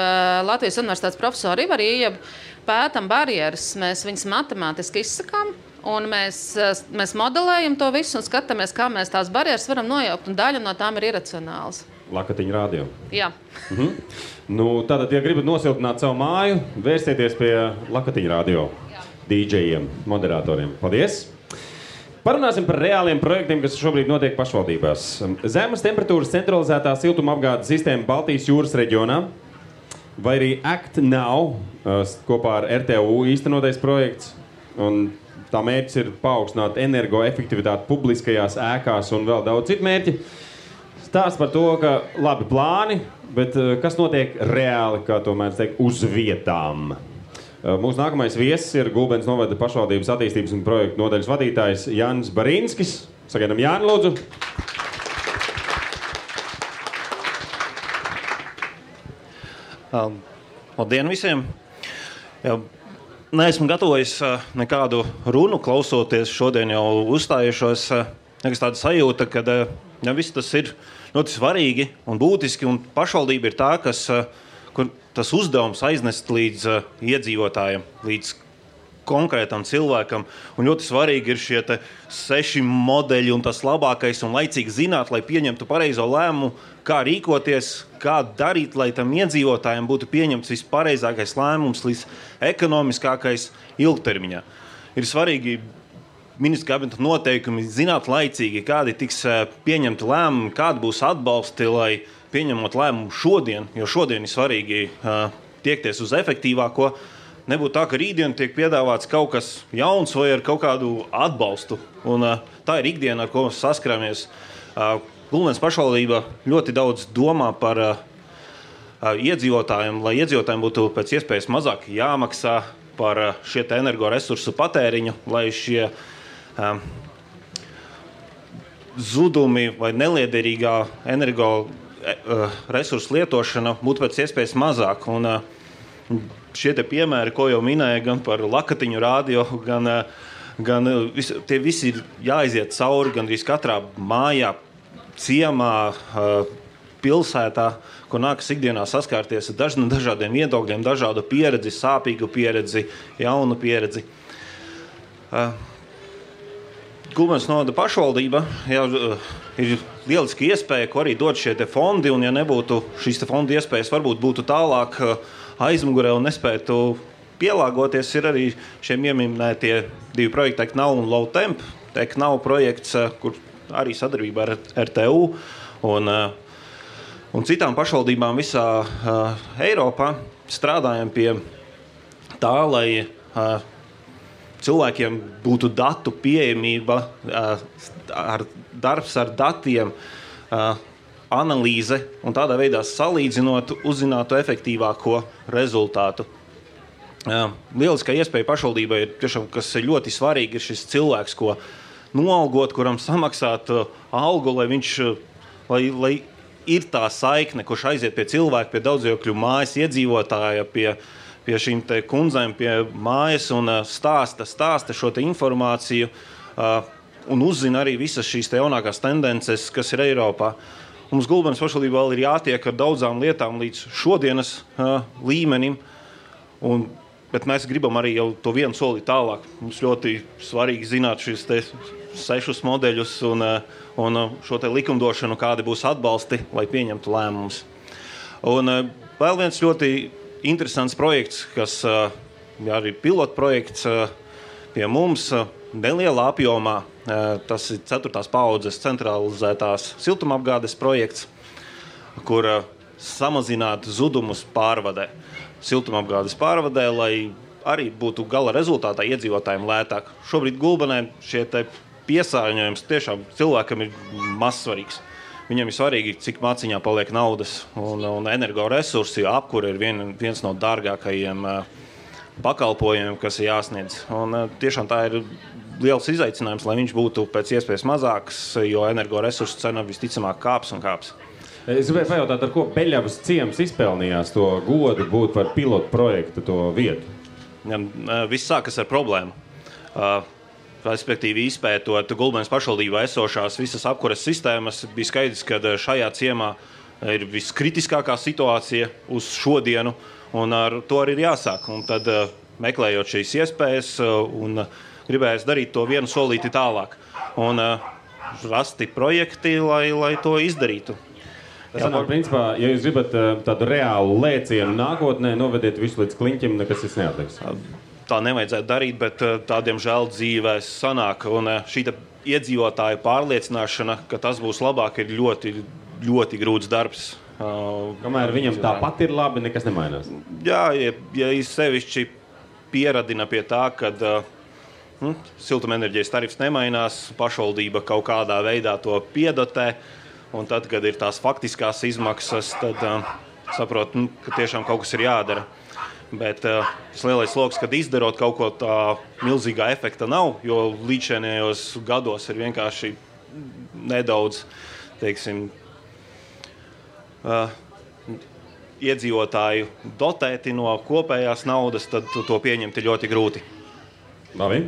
Latvijas Universitātes profesoru Ivaru Iejabu, pētam barjeras, mēs viņas matemātiski izsakām. Un mēs modelējam to visu un skatāmies, kā mēs tās barjeras varam nojaukt. Un daļa no tām ir iracionāls. Lakatiņu radio. Jā. Tātad, ja gribat nosiltināt savu māju, vērsieties pie Lakatiņu radio DJiem, moderatoriem. Paldies! Parunāsim par reāliem projektiem, kas šobrīd notiek pašvaldībās. Zemes temperatūras centralizētā siltumapgādes sistēma Baltijas jūras reģionā, vai arī Act Now, kopā ar RTU īstenotais projekts. Un tā mērķis ir paaugstināt energoefektivitāti publiskajās ēkās un vēl daudz citu mērķi. Stāsts par to, ka labi plāni, bet kas notiek reāli, kā to mēdz teikt, uz vietām. Mūsu nākamais viesis ir Gulbenes novada pašvaldības attīstības un projektu nodaļas vadītājs Jānis Barīnskis. Sagaidām Jāni, lūdzu. Labdien visiem! Neesmu gatavojis nekādu runu, klausoties šodien jau uzstājušos. Nekas tāda sajūta, ka viss tas ir ļoti svarīgi un būtiski, un pašvaldība ir tā, kur tas uzdevums aiznest līdz iedzīvotājiem, līdz konkrētam cilvēkam. Un ļoti svarīgi ir šie 6 modeļi un tas labākais un laicīgi zināt, lai pieņemtu pareizo lēmumu, kā rīkoties, kā darīt, lai tam iedzīvotājiem būtu pieņemts vispareizākais lēmums, līdz ekonomiskākais ilgtermiņā. Ir svarīgi ministra kabineta noteikumi zināt laicīgi, kādi tiks pieņemti lēmumi, kādi būs atbalsti, lai pieņemot lēmumu šodien, jo šodien ir svarīgi tiekties uz efektīvāko. Nebūtu tā, ka rītdien tiek piedāvāts kaut kas jauns vai ar kaut kādu atbalstu. Un tā ir ikdiena, ar ko mēs saskaramies. Gulbenes pašvaldība ļoti daudz domā par iedzīvotājiem, lai iedzīvotājiem būtu pēc iespējas mazāk jāmaksā par šie energoresursu patēriņu, lai šie zudumi vai neliederīgā energoresursu lietošana būtu pēc iespējas mazāk. Un šie piemēri, ko jau minēja, gan par Lakatiņu radio, gan tie visi ir jāiziet cauri gandrīz katrā mājā, ciemā, pilsētā, kur nākas ikdienā saskārties ar dažādiem viedokļiem, dažādu pieredzi, sāpīgu pieredzi, jaunu pieredzi. Gulbenes novada pašvaldība ir lieliski iespēja, ko arī dod šie fondi, un ja nebūtu šīs fonda iespējas, varbūt būtu tālāk aizmugurē un nespētu pielāgoties, ir arī šiem ieminētie 2 projekti Act Now un Low Temp. Act Now projekts, kur arī sadarbībā ar RTU un citām pašvaldībām visā Eiropā strādājam pie tā, lai cilvēkiem būtu datu pieejamība, darbs ar datiem, analīze un tādā veidā salīdzinot, uzzinātu efektīvāko rezultātu. Lieliskā iespēja pašvaldībai ir tiešām, kas ir ļoti svarīgi, ir šis cilvēks, ko noalgot, kuram samaksāt algu, lai ir tā saikne, kurš aiziet pie cilvēka, pie daudzdzīvokļu mājas iedzīvotāja, pie šīm kundzēm, pie mājas un stāsta šo informāciju un uzzina arī visas šīs jaunākās tendences, kas ir Eiropā. Mums Gulbenes pašvaldībā vēl ir jātiek ar daudzām lietām līdz šodienas līmenim, bet mēs gribam arī jau to vienu soli tālāk. Mums ļoti svarīgi zināt šīs 6 modeļus un šo likumdošanu, kādi būs atbalsti, lai pieņemtu lēmumus. Un vēl viens ļoti interesants projekts, kas arī pilotprojekts pie mums nelielā apjomā. Tas ir 4. paaudzes centralizētās siltumapgādes projekts, kur samazināt zudumus pārvadē. siltumapgādes pārvadē, lai arī būtu gala rezultātā iedzīvotājiem lētāk. Šobrīd Gulbenē šie piesārņojums tiešām cilvēkam ir mazsvarīgs. Viņam ir svarīgi, cik maciņā paliek naudas un energoresursi, jo apkure ir viens no dārgākajiem pakalpojumiem, kas ir jāsniedz. Un tiešām tā ir liels izaicinājums, lai viņš būtu pēc iespējas mazāks, jo energoresursu cena visticamāk kāps un kāps. Es gribēju pajautāt, ar ko Beļavas ciems izpelnījās to godu būt par pilotu projektu to vietu? Viss sākas ar problēmu. Respektīvi, izpētot Gulbenes pašvaldībā esošās visas apkures sistēmas, bija skaidrs, ka šajā ciemā ir viskritiskākā situācija uz šodienu, un ar to arī ir jāsāk. Un tad, meklējot šīs iespējas, un gribējās darīt to vienu solīti tālāk. Un rasti projekti, lai to izdarītu. Tas sanāk, principā, ja jūs gribat tādu reālu lēcienu nākotnē, novediet visu līdz kliņķim, nekas tas neatliks. Tā nevajadzētu darīt, bet tādiem žēl dzīvēs sanāk. Un šī iedzīvotāju pārliecināšana, ka tas būs labāk, ir ļoti, ļoti grūts darbs. Kamēr viņam tāpat ir labi, nekas nemainās. Jā, ja sevišķi pieradina pie tā, kad siltumenerģijas tarifs nemainās, pašvaldība kaut kādā veidā to piedotē, un tad, kad ir tās faktiskās izmaksas, tad saprot, ka tiešām kaut kas ir jādara. Bet tas lielais sloks, kad izdarot kaut ko tā milzīgā efekta nav, jo līdzinējos gados ir vienkārši nedaudz, teiksim, iedzīvotāju dotēti no kopējās naudas, tad to pieņemt ir ļoti grūti. Labi.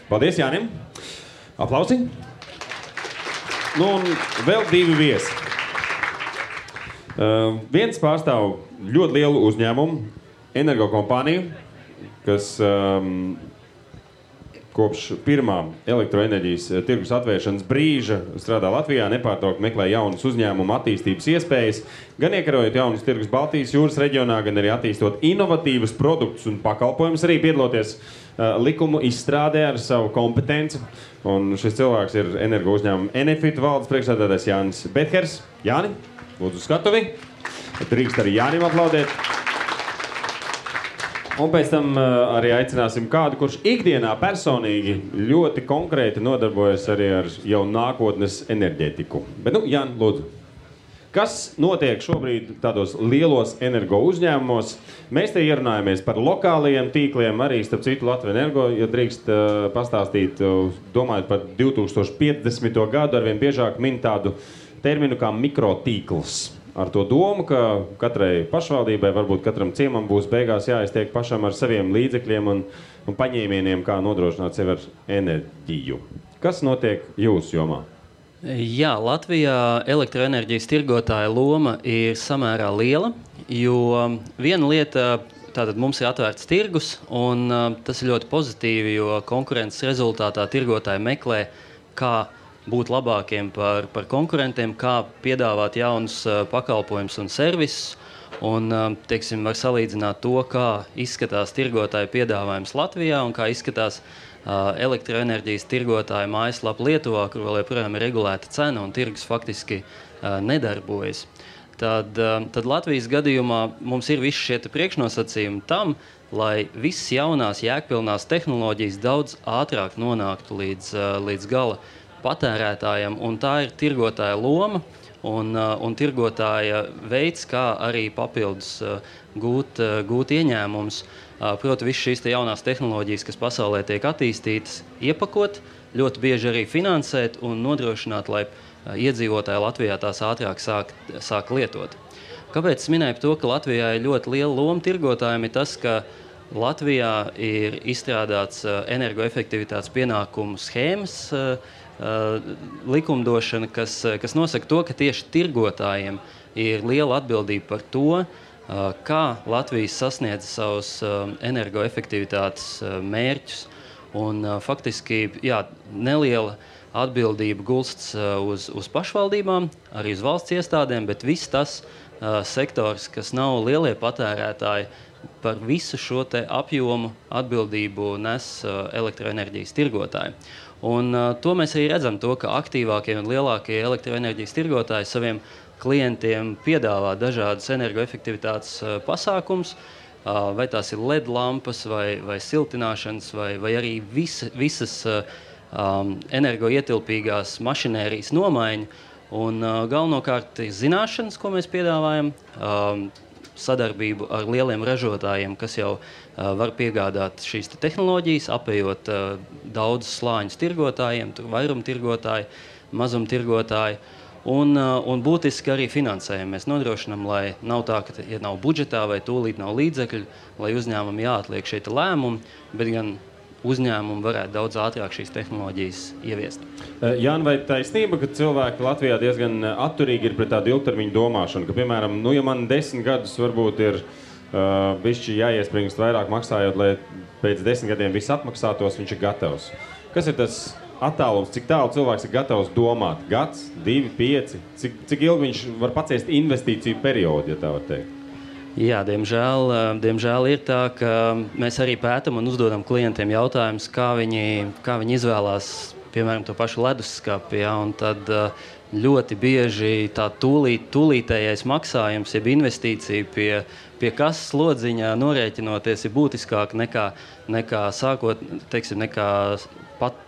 Paldies Jānim. Aplausi. Nu, un vēl divi viesi. Viens pārstāv ļoti lielu uzņēmumu, energokompāniju, kas kopš pirmā elektroenerģijas tirgus atvēršanas brīža strādā Latvijā, nepārtraukti meklē jaunas uzņēmumu attīstības iespējas, gan iekarojot jaunas tirgus Baltijas jūras reģionā, gan arī attīstot inovatīvus produktus un pakalpojumus, arī piedaloties likumu izstrādē ar savu kompetenci. Un šis cilvēks ir energo uzņēmuma Enefit valdes priekšsēdētājs Jānis Bethers. Jāni, lūdzu skatuvi. Drīkst arī Jānim aplaudēt. Un pēc tam arī aicināsim kādu, kurš ikdienā personīgi ļoti konkrēti nodarbojas arī ar jau nākotnes enerģētiku. Bet, Jāni, lūdzu. Kas notiek šobrīd tādos lielos energo uzņēmumos? Mēs te ierunājamies par lokālajiem tīkliem, arī starp citu Latviju Energo, ja drīkst pastāstīt, domājot par 2050. gadu, arvien biežāk min tādu terminu kā mikrotīkls. Ar to domu, ka katrai pašvaldībai, varbūt katram ciemam būs beigās jāiztiek pašam ar saviem līdzekļiem un paņēmieniem, kā nodrošināt sevi ar enerģiju. Kas notiek jūsu jomā? Jā, Latvijā elektroenerģijas tirgotāja loma ir samērā liela, jo viena lieta, tātad mums ir atvērts tirgus, un tas ir ļoti pozitīvi, jo konkurences rezultātā tirgotāji meklē, kā būt labākiem par konkurentiem, kā piedāvāt jaunus pakalpojumus un servisus, un, teiksim, var salīdzināt to, kā izskatās tirgotāju piedāvājums Latvijā un kā izskatās elektroenerģijas tirgotāja mājaslapa Lietuvā, kur vēl joprojām ir regulēta cena un tirgus faktiski nedarbojas. Tad Latvijas gadījumā mums ir visi šie priekšnosacījumi tam, lai visas jaunās jēgpilnās tehnoloģijas daudz ātrāk nonāktu līdz gala patērētājiem, un tā ir tirgotāja loma un tirgotāja veids, kā arī papildus gūt ieņēmumus. Proti, visas šīs jaunās tehnoloģijas, kas pasaulē tiek attīstītas, iepakot, ļoti bieži arī finansēt un nodrošināt, lai iedzīvotāji Latvijā tās ātrāk sāk lietot. Kāpēc es minēju to, ka Latvijā ir ļoti liela loma tirgotājiem, ir tas, ka Latvijā ir izstrādāts energoefektivitātes pienākumu schēmas likumdošana, kas nosaka to, ka tieši tirgotājiem ir liela atbildība par to, kā Latvijas sasniedz savus energoefektivitātes mērķus. Un faktiski, neliela atbildība gulsts uz pašvaldībām, arī uz valsts iestādēm, bet viss tas sektors, kas nav lielie patērētāji, par visu šo te apjomu atbildību nes elektroenerģijas tirgotāji. Un to mēs arī redzam, ka aktīvākie un lielākie elektroenerģijas tirgotāji saviem klientiem piedāvā dažādas energoefektivitātes pasākums, vai tās ir LED lampas, vai siltināšanas, vai arī visas energoietilpīgās mašinērijas nomaiņa. Un galvenokārt ir zināšanas, ko mēs piedāvājam, sadarbību ar lieliem ražotājiem, kas jau var piegādāt šīs tehnoloģijas, apējot daudzus slāņus tirgotājiem, tur vairumtirgotāji, mazumtirgotāji. Un būtiski arī finansējumu mēs nodrošinām, lai nav tā, ka ja nav budžetā vai tūlīt nav līdzekļu, lai uzņēmumi jāatliek šeit lēmumi, bet gan uzņēmumi varētu daudz ātrāk šīs tehnoloģijas ieviest. Jāni, vai taisnība, ka cilvēki Latvijā diezgan atturīgi ir pret tādu ilgtermiņu domāšanu, ka, piemēram, ja man 10 gadus varbūt ir bišķi jāiespringst vairāk maksājot, lai pēc 10 gadiem viss atmaksātos, viņš ir gatavs. Kas ir tas attālums, cik tālu cilvēks ir gatavs domāt? Gads, 2, 5? Cik ilgi viņš var paciest investīciju periodu, ja tā var teikt? Jā, diemžēl ir tā, ka mēs arī pētam un uzdodam klientiem jautājumus, kā viņi izvēlās, piemēram, to pašu leduskapi, ja, un tad ļoti bieži tā tūlītējais maksājums, jeb investīcija pie kasas slodziņā norēķinoties ir būtiskāk nekā sākot, teiksim, nekā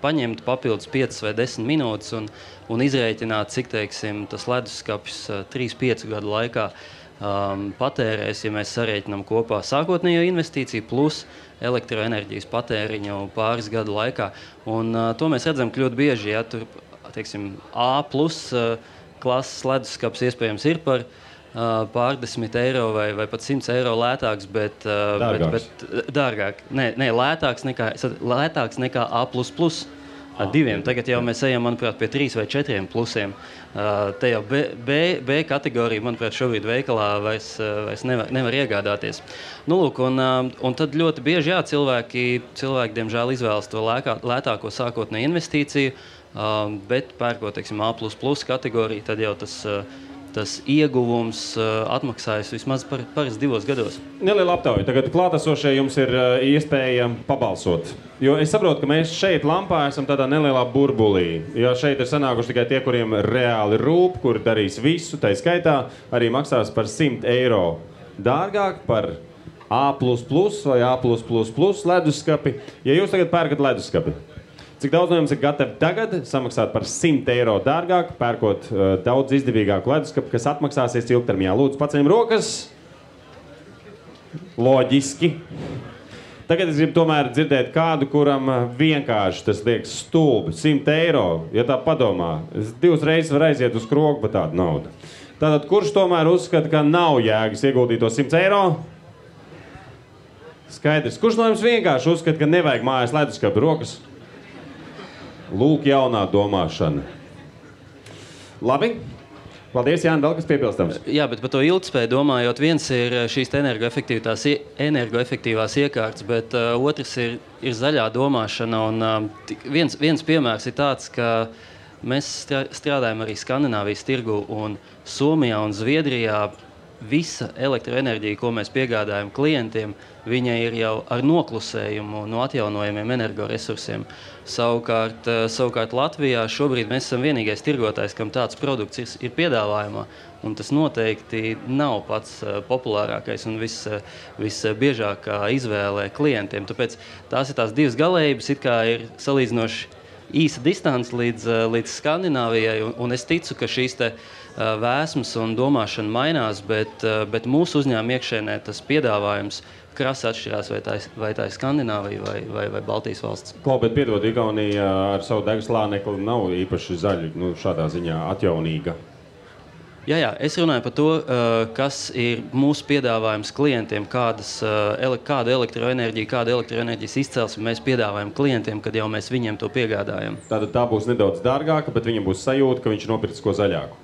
paņemt papildus 5 vai 10 minūtes un izrēķināt, cik, teiksim, tas leduskapis 3-5 gadu laikā patērēs, ja mēs sarēķinām kopā sākotnējo investīciju plus elektroenerģijas patēriņu pāris gadu laikā. Un to mēs redzam ļoti bieži, ja tur, teiksim, A+ klases leduskaps iespējams ir par pārdesmit eiro vai pat 100 eiro lētāks, bet dārgāk. Nē, lētāks nekā A++. Diviem. Tagad jau mēs ejam, manuprāt, pie 3 vai 4 plusiem. Te jau B kategorija, manuprāt, šobrīd veikalā vairs nevar iegādāties. Nu, lūk, un tad ļoti bieži, jā, cilvēki diemžēl izvēlas to lētāko sākotnēju investīciju, bet pērkot, teiksim, A++ kategoriju, tad jau tas ieguvums atmaksājas vismaz parasti 2 gados. Neliela aptauja. Tagad klātesošie jums ir iespēja pabalsot. Jo es saprotu, ka mēs šeit Lampā esam tādā nelielā burbulī. Jo šeit ir sanākuši tikai tie, kuriem reāli rūp, kuri darīs visu, tai skaitā arī maksās par 100 eiro dārgāk par A++ vai A+++ leduskapi. Ja jūs tagad pērkat leduskapi, cik daudz no jums ir gatavi tagad samaksāt par 100 eiro dārgāk, pērkot daudz izdevīgāku leduskapu, kas atmaksāsies ilgtermiņā? Lūdzu, paceļam rokas. Loģiski. Tagad es gribu tomēr dzirdēt kādu, kuram vienkārši tas liekas stulbi. 100 eiro, ja tā padomā. Es 2 reizes var aiziet uz krogu par tādu naudu. Tātad, kurš tomēr uzskata, ka nav jēgas ieguldīt to 100 eiro? Skaidrs. Kurš no jums vienkārši uzskata, ka nevajag mājās leduskapu? Rokas? Lūk, jaunā domāšana. Labi. Paldies, Jāni, vēl kas piebilstams? Jā, bet par to ilgtspēju domājot, viens ir šīs energoefektīvās iekārtas, bet otrs ir zaļā domāšana. Un viens piemērs ir tāds, ka mēs strādājam arī Skandināvijas tirgu, un Somijā un Zviedrijā visa elektroenerģija, ko mēs piegādājam klientiem, viņa ir jau ar noklusējumu no atjaunojumiem energoresursiem. Savukārt Latvijā šobrīd mēs esam vienīgais tirgotājs, kam tāds produkts ir piedāvājumā, un tas noteikti nav pats populārākais un visbiežākā izvēle klientiem. Tāpēc tās ir tās divas galējības, it kā ir salīdzinoši īsa distance līdz Skandināvijai, un es ticu, ka šīs te vēsmas un domāšana mainās, bet mūsu uzņēmuma iekšēnē tas piedāvājums krasi atšķirās, vai tā ir Skandināvija vai Baltijas valsts. Klau, bet piedod, Igaunija ar savu degslānekli nav īpaši zaļa, šādā ziņā atjaunīga. Jā, es runāju par to, kas ir mūsu piedāvājums klientiem, kāda elektroenerģijas izcelsme mēs piedāvājam klientiem, kad jau mēs viņiem to piegādājam. Tātad tā būs nedaudz dārgāka, bet viņam būs sajūta, ka viņš ir nopircis ko zaļāku.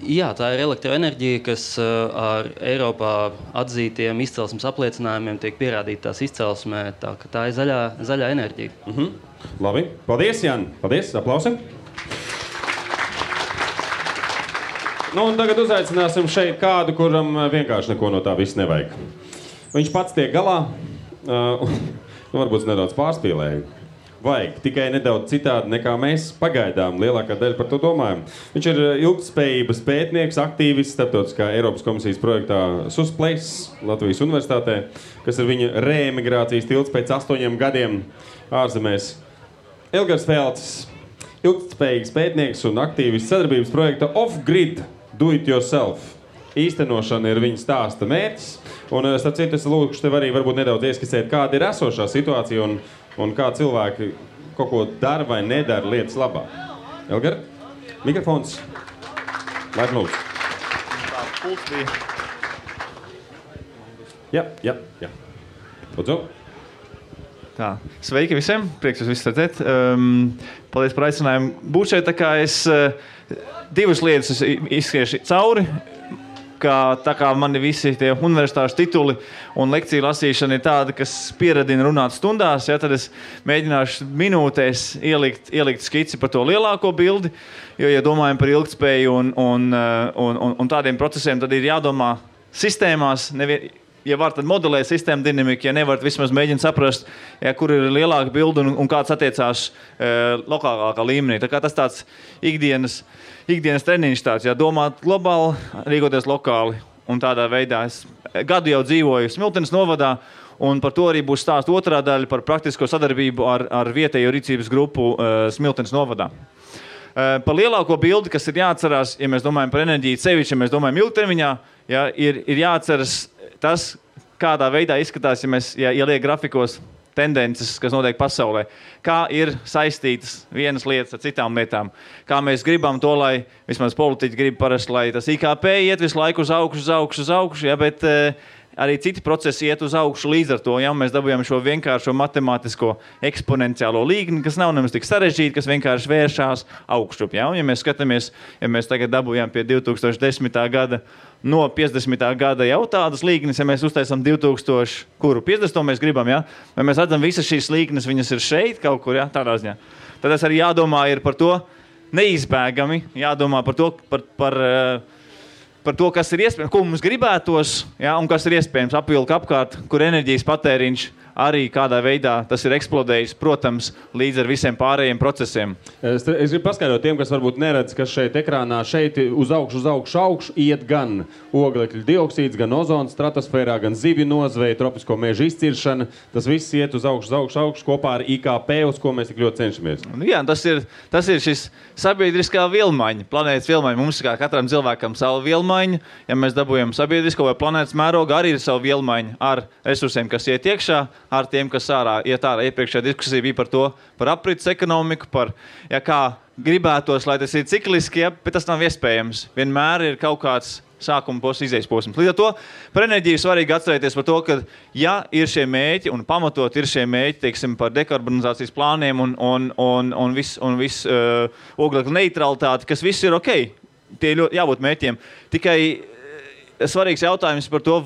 Jā, tā ir elektroenerģija, kas ar Eiropā atzītiem izcelsmes apliecinājumiem tiek pierādīta tās izcelsmē, tā ir zaļā enerģija. Labi, paldies, Jāni. Paldies, aplausi. Un tagad uzaicināsim šeit kādu, kuram vienkārši neko no tā viss nevajag. Viņš pats tiek galā, varbūt nedaudz pārspīlēja. vajag, tikai nedaudz citādi nekā mēs pagaidām lielākā daļa par to domājam. Viņš ir ilgtspējības pētnieks, aktīvists starptautiskā Eiropas komisijas projektā SUSPLACE Latvijas Universitātē, kas ir viņa reemigrācijas tilts pēc 8 gadiem ārzemēs. Elgars Felts, ilgtspējīgs pētnieks un aktīvists sadarbības projekta Off-Grid Do It Yourself. Īstenošana ir viņa stāsta mērķis. Un, starp citu, es lūkšu tev arī varbūt nedaudz ieskicēt, kāda ir esošā situācija un kā cilvēki kaut ko dara vai nedara lietas labā. Elgar, mikrofons. Laik lūdzu. Tā pults bija. Jā. Lūdzu. Tā, sveiki visiem, prieks jūs visus redzēt. Paldies par aicinājumu būt šeit, tā kā es divas lietas izskriešu cauri. Tā kā mani visi tie universitāšu tituli un lekciju lasīšana ir tāda, kas pieradina runāt stundās, ja, tad es mēģināšu minūtēs ielikt skici par to lielāko bildi, jo, ja domājam par ilgtspēju un tādiem procesiem, tad ir jādomā sistēmās, ja var, tad modelē sistēmu dinamiku, ja nevar, vismaz mēģina saprast, ja, kur ir lielāka bilde un kāds attiecās lokālākā līmenī. Tā kā tas tāds ikdienas treniņš tāds, ja domāt globāli, rīkoties lokāli un tādā veidā. Es gadu jau dzīvoju Smiltenes novadā un par to arī būs stāst otrā daļa par praktisko sadarbību ar vietējo rīcības grupu Smiltenes novadā. Par lielāko bildi, kas ir jāatcerās, ja mēs domājam par enerģiju sevišķi, ja mēs domājam ilgtermiņā, ja, ir jāatceras tas, kādā veidā izskatās, ja liek grafikos tendences, kas notiek pasaulē, kā ir saistītas vienas lietas ar citām lietām, kā mēs gribam to, lai vismaz politiķi grib parasti, lai tas IKP iet visu laiku uz augšu, ja, bet arī citi procesi iet uz augšu līdz ar to, ja mēs dabūjam šo vienkāršo matemātisko eksponenciālo līgni, kas nav nemaz tik sarežģīti, kas vienkārši vēršās augšup, ja, un ja mēs skatāmies, ja mēs tagad dabūjam pie 2010. gada no 50. gada jau tādas līgnes, ja mēs uztaisam 2000, kuru 50. mēs gribam, ja? Vai mēs redzam visas šīs līgnes, viņas ir šeit kaut kur, ja? Tādā ziņā. Tad tas arī jādomā ir par to neizbēgami, jādomā par to, par to, kas ir iespējams, ko mums gribētos, ja? Un kas ir iespējams apvilka apkārt, kur enerģijas patēriņš arī kādā veidā tas ir eksplodējis, protams, līdz ar visiem pārējiem procesiem. Es gribu paskaidrot tiem, kas varbūt neredz, kas šeit ekrānā šeit uz augšu iet gan oglekļa dioksīds, gan ozons stratosfērā, gan zivju nozveja, tropisko mežu izciršana. Tas viss iet uz augšu kopā ar IKP, uz ko mēs tik ļoti cenšamies. Jā, tas ir šis sabiedriskā vilmaiņa, planētas vilmaiņa. Mums kā katram cilvēkam savu vilmaiņu, ja mēs dabūjam sabiedrisko vai planētas mērogu, arī ir savu vilmaiņu ar resursiem, kas iet iekšā, ar tiem, kas iet ārā. Iepriekšējā diskusija bija par aprits ekonomiku, par, ja kā gribētos, lai tas ir cikliski, ja, bet tas nav iespējams. Vienmēr ir kaut kāds sākuma posms, izējas posms. Līdz ar to par enerģiju svarīgi atcerēties par to, ka ja ir šie mēķi un pamatot ir šie mēķi, teiksim, par dekarbonizācijas plāniem un viss oglekļa neutralitāti, kas viss ir ok, tie jābūt mēķiem. Tikai svarīgs jautājums par to,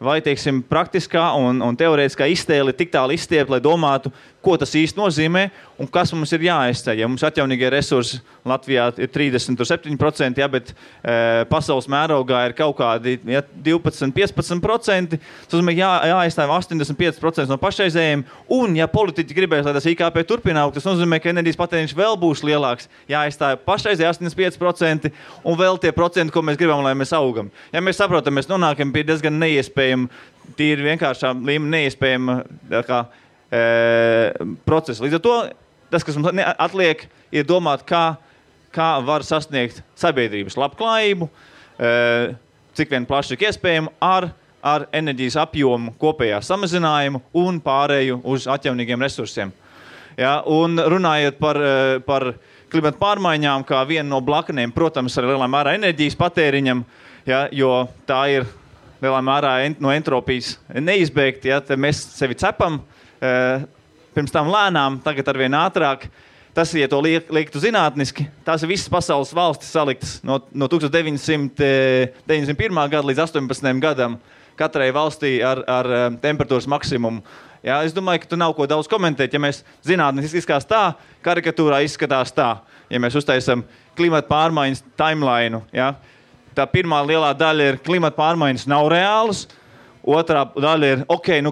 vai teiksim, praktiskā un teorētiskā iztēle tik tālu izstiept, lai domātu, ko tas īsti nozīmē un kas mums ir jāaizceļ. Ja mums atjaunīgie resursi Latvijā ir 37%, ja, bet pasaules mērogā ir kaut kādi 12-15%, tas nozīmē jāaizstāv 85% no pašreizējiem, un ja politiķi gribēs, lai tas IKP turpina augt, tas nozīmē, ka enerģijas patēriņš vēl būs lielāks, jāaizstāv pašreizēji 85% un vēl tie procenti, ko mēs gribam, lai mēs augam. Ja mēs saprotam, mēs nonākam pie diezgan neiespējama, tīri vienkāršā līmenī neiespējama procesa. Līdz ar to, tas, kas mums atliek, ir domāt, kā var sasniegt sabiedrības labklājību, cik vien plaši ir iespējama ar enerģijas apjomu kopējā samazinājumu un pārēju uz atjaunīgiem resursiem. Ja, un runājot par klimata pārmaiņām, kā vienu no blakaniem, protams, ar lielā mērā enerģijas patēriņam, ja, jo tā ir lielā mērā no entropijas neizbēgt, ja, mēs sevi cepam, pirms tam lēnām, tagad arvien ātrāk. Tas, ja to liektu zinātniski, tās ir visas pasaules valstis saliktas no 1991. Gada līdz 18. gadam katrai valstī ar temperatūras maksimumu. Ja, es domāju, ka tu nav ko daudz komentēt. Ja mēs zinātniski izskatās tā, karikatūrā izskatās tā. Ja mēs uztaisam klimata pārmaiņas timeline, ja, tā pirmā lielā daļa ir klimata pārmaiņas nav reālas, Otrā daļa ir,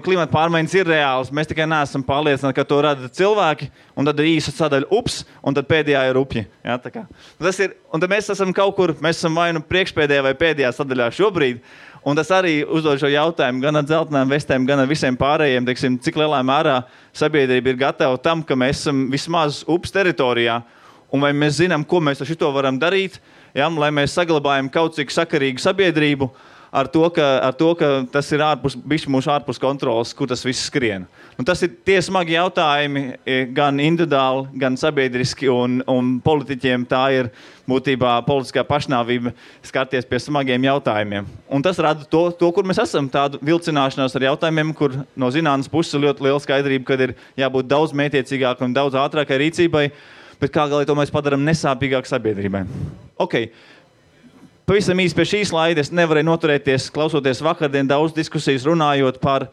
klimata pārmaiņas ir reāls, mēs tikai neesam pārliecināti, ka to rada cilvēki, un tad ir īsa sadaļa ups, un tad pēdējā ir upji. Ja, tā kā. Tas ir, un tad mēs esam kaut kur, mēs esam vai nu priekšpēdējā vai pēdējā sadaļā šobrīd, un tas arī uzdod šo jautājumu gan ar dzeltenām vestēm, gan ar visiem pārējiem, teiksim, cik lielā mērā sabiedrība ir gatava tam, ka mēs esam vismaz ups teritorijā, un vai mēs zinām, ko mēs ar šito varam darīt, ja, lai mēs saglabājam kaut cik sakarīgu sabiedrību, ar to, ka tas ir mūsu ārpus kontrolas, kur tas viss skrien. Un tas ir tie smagi jautājumi gan individuāli, gan sabiedriski, un politiķiem tā ir būtībā politiskā pašnāvība skarties pie smagiem jautājumiem. Un tas rada to, kur mēs esam, tādu vilcināšanos ar jautājumiem, kur no zinātnes puses ļoti liela skaidrība, kad ir jābūt daudz mētiecīgāk un daudz ātrākai rīcībai, bet kā galīgi to mēs padaram nesāpīgāk sabiedrībai. Pavisam īsti pie šīs slaida es nevarēju noturēties, klausoties vakardien daudz diskusijas runājot par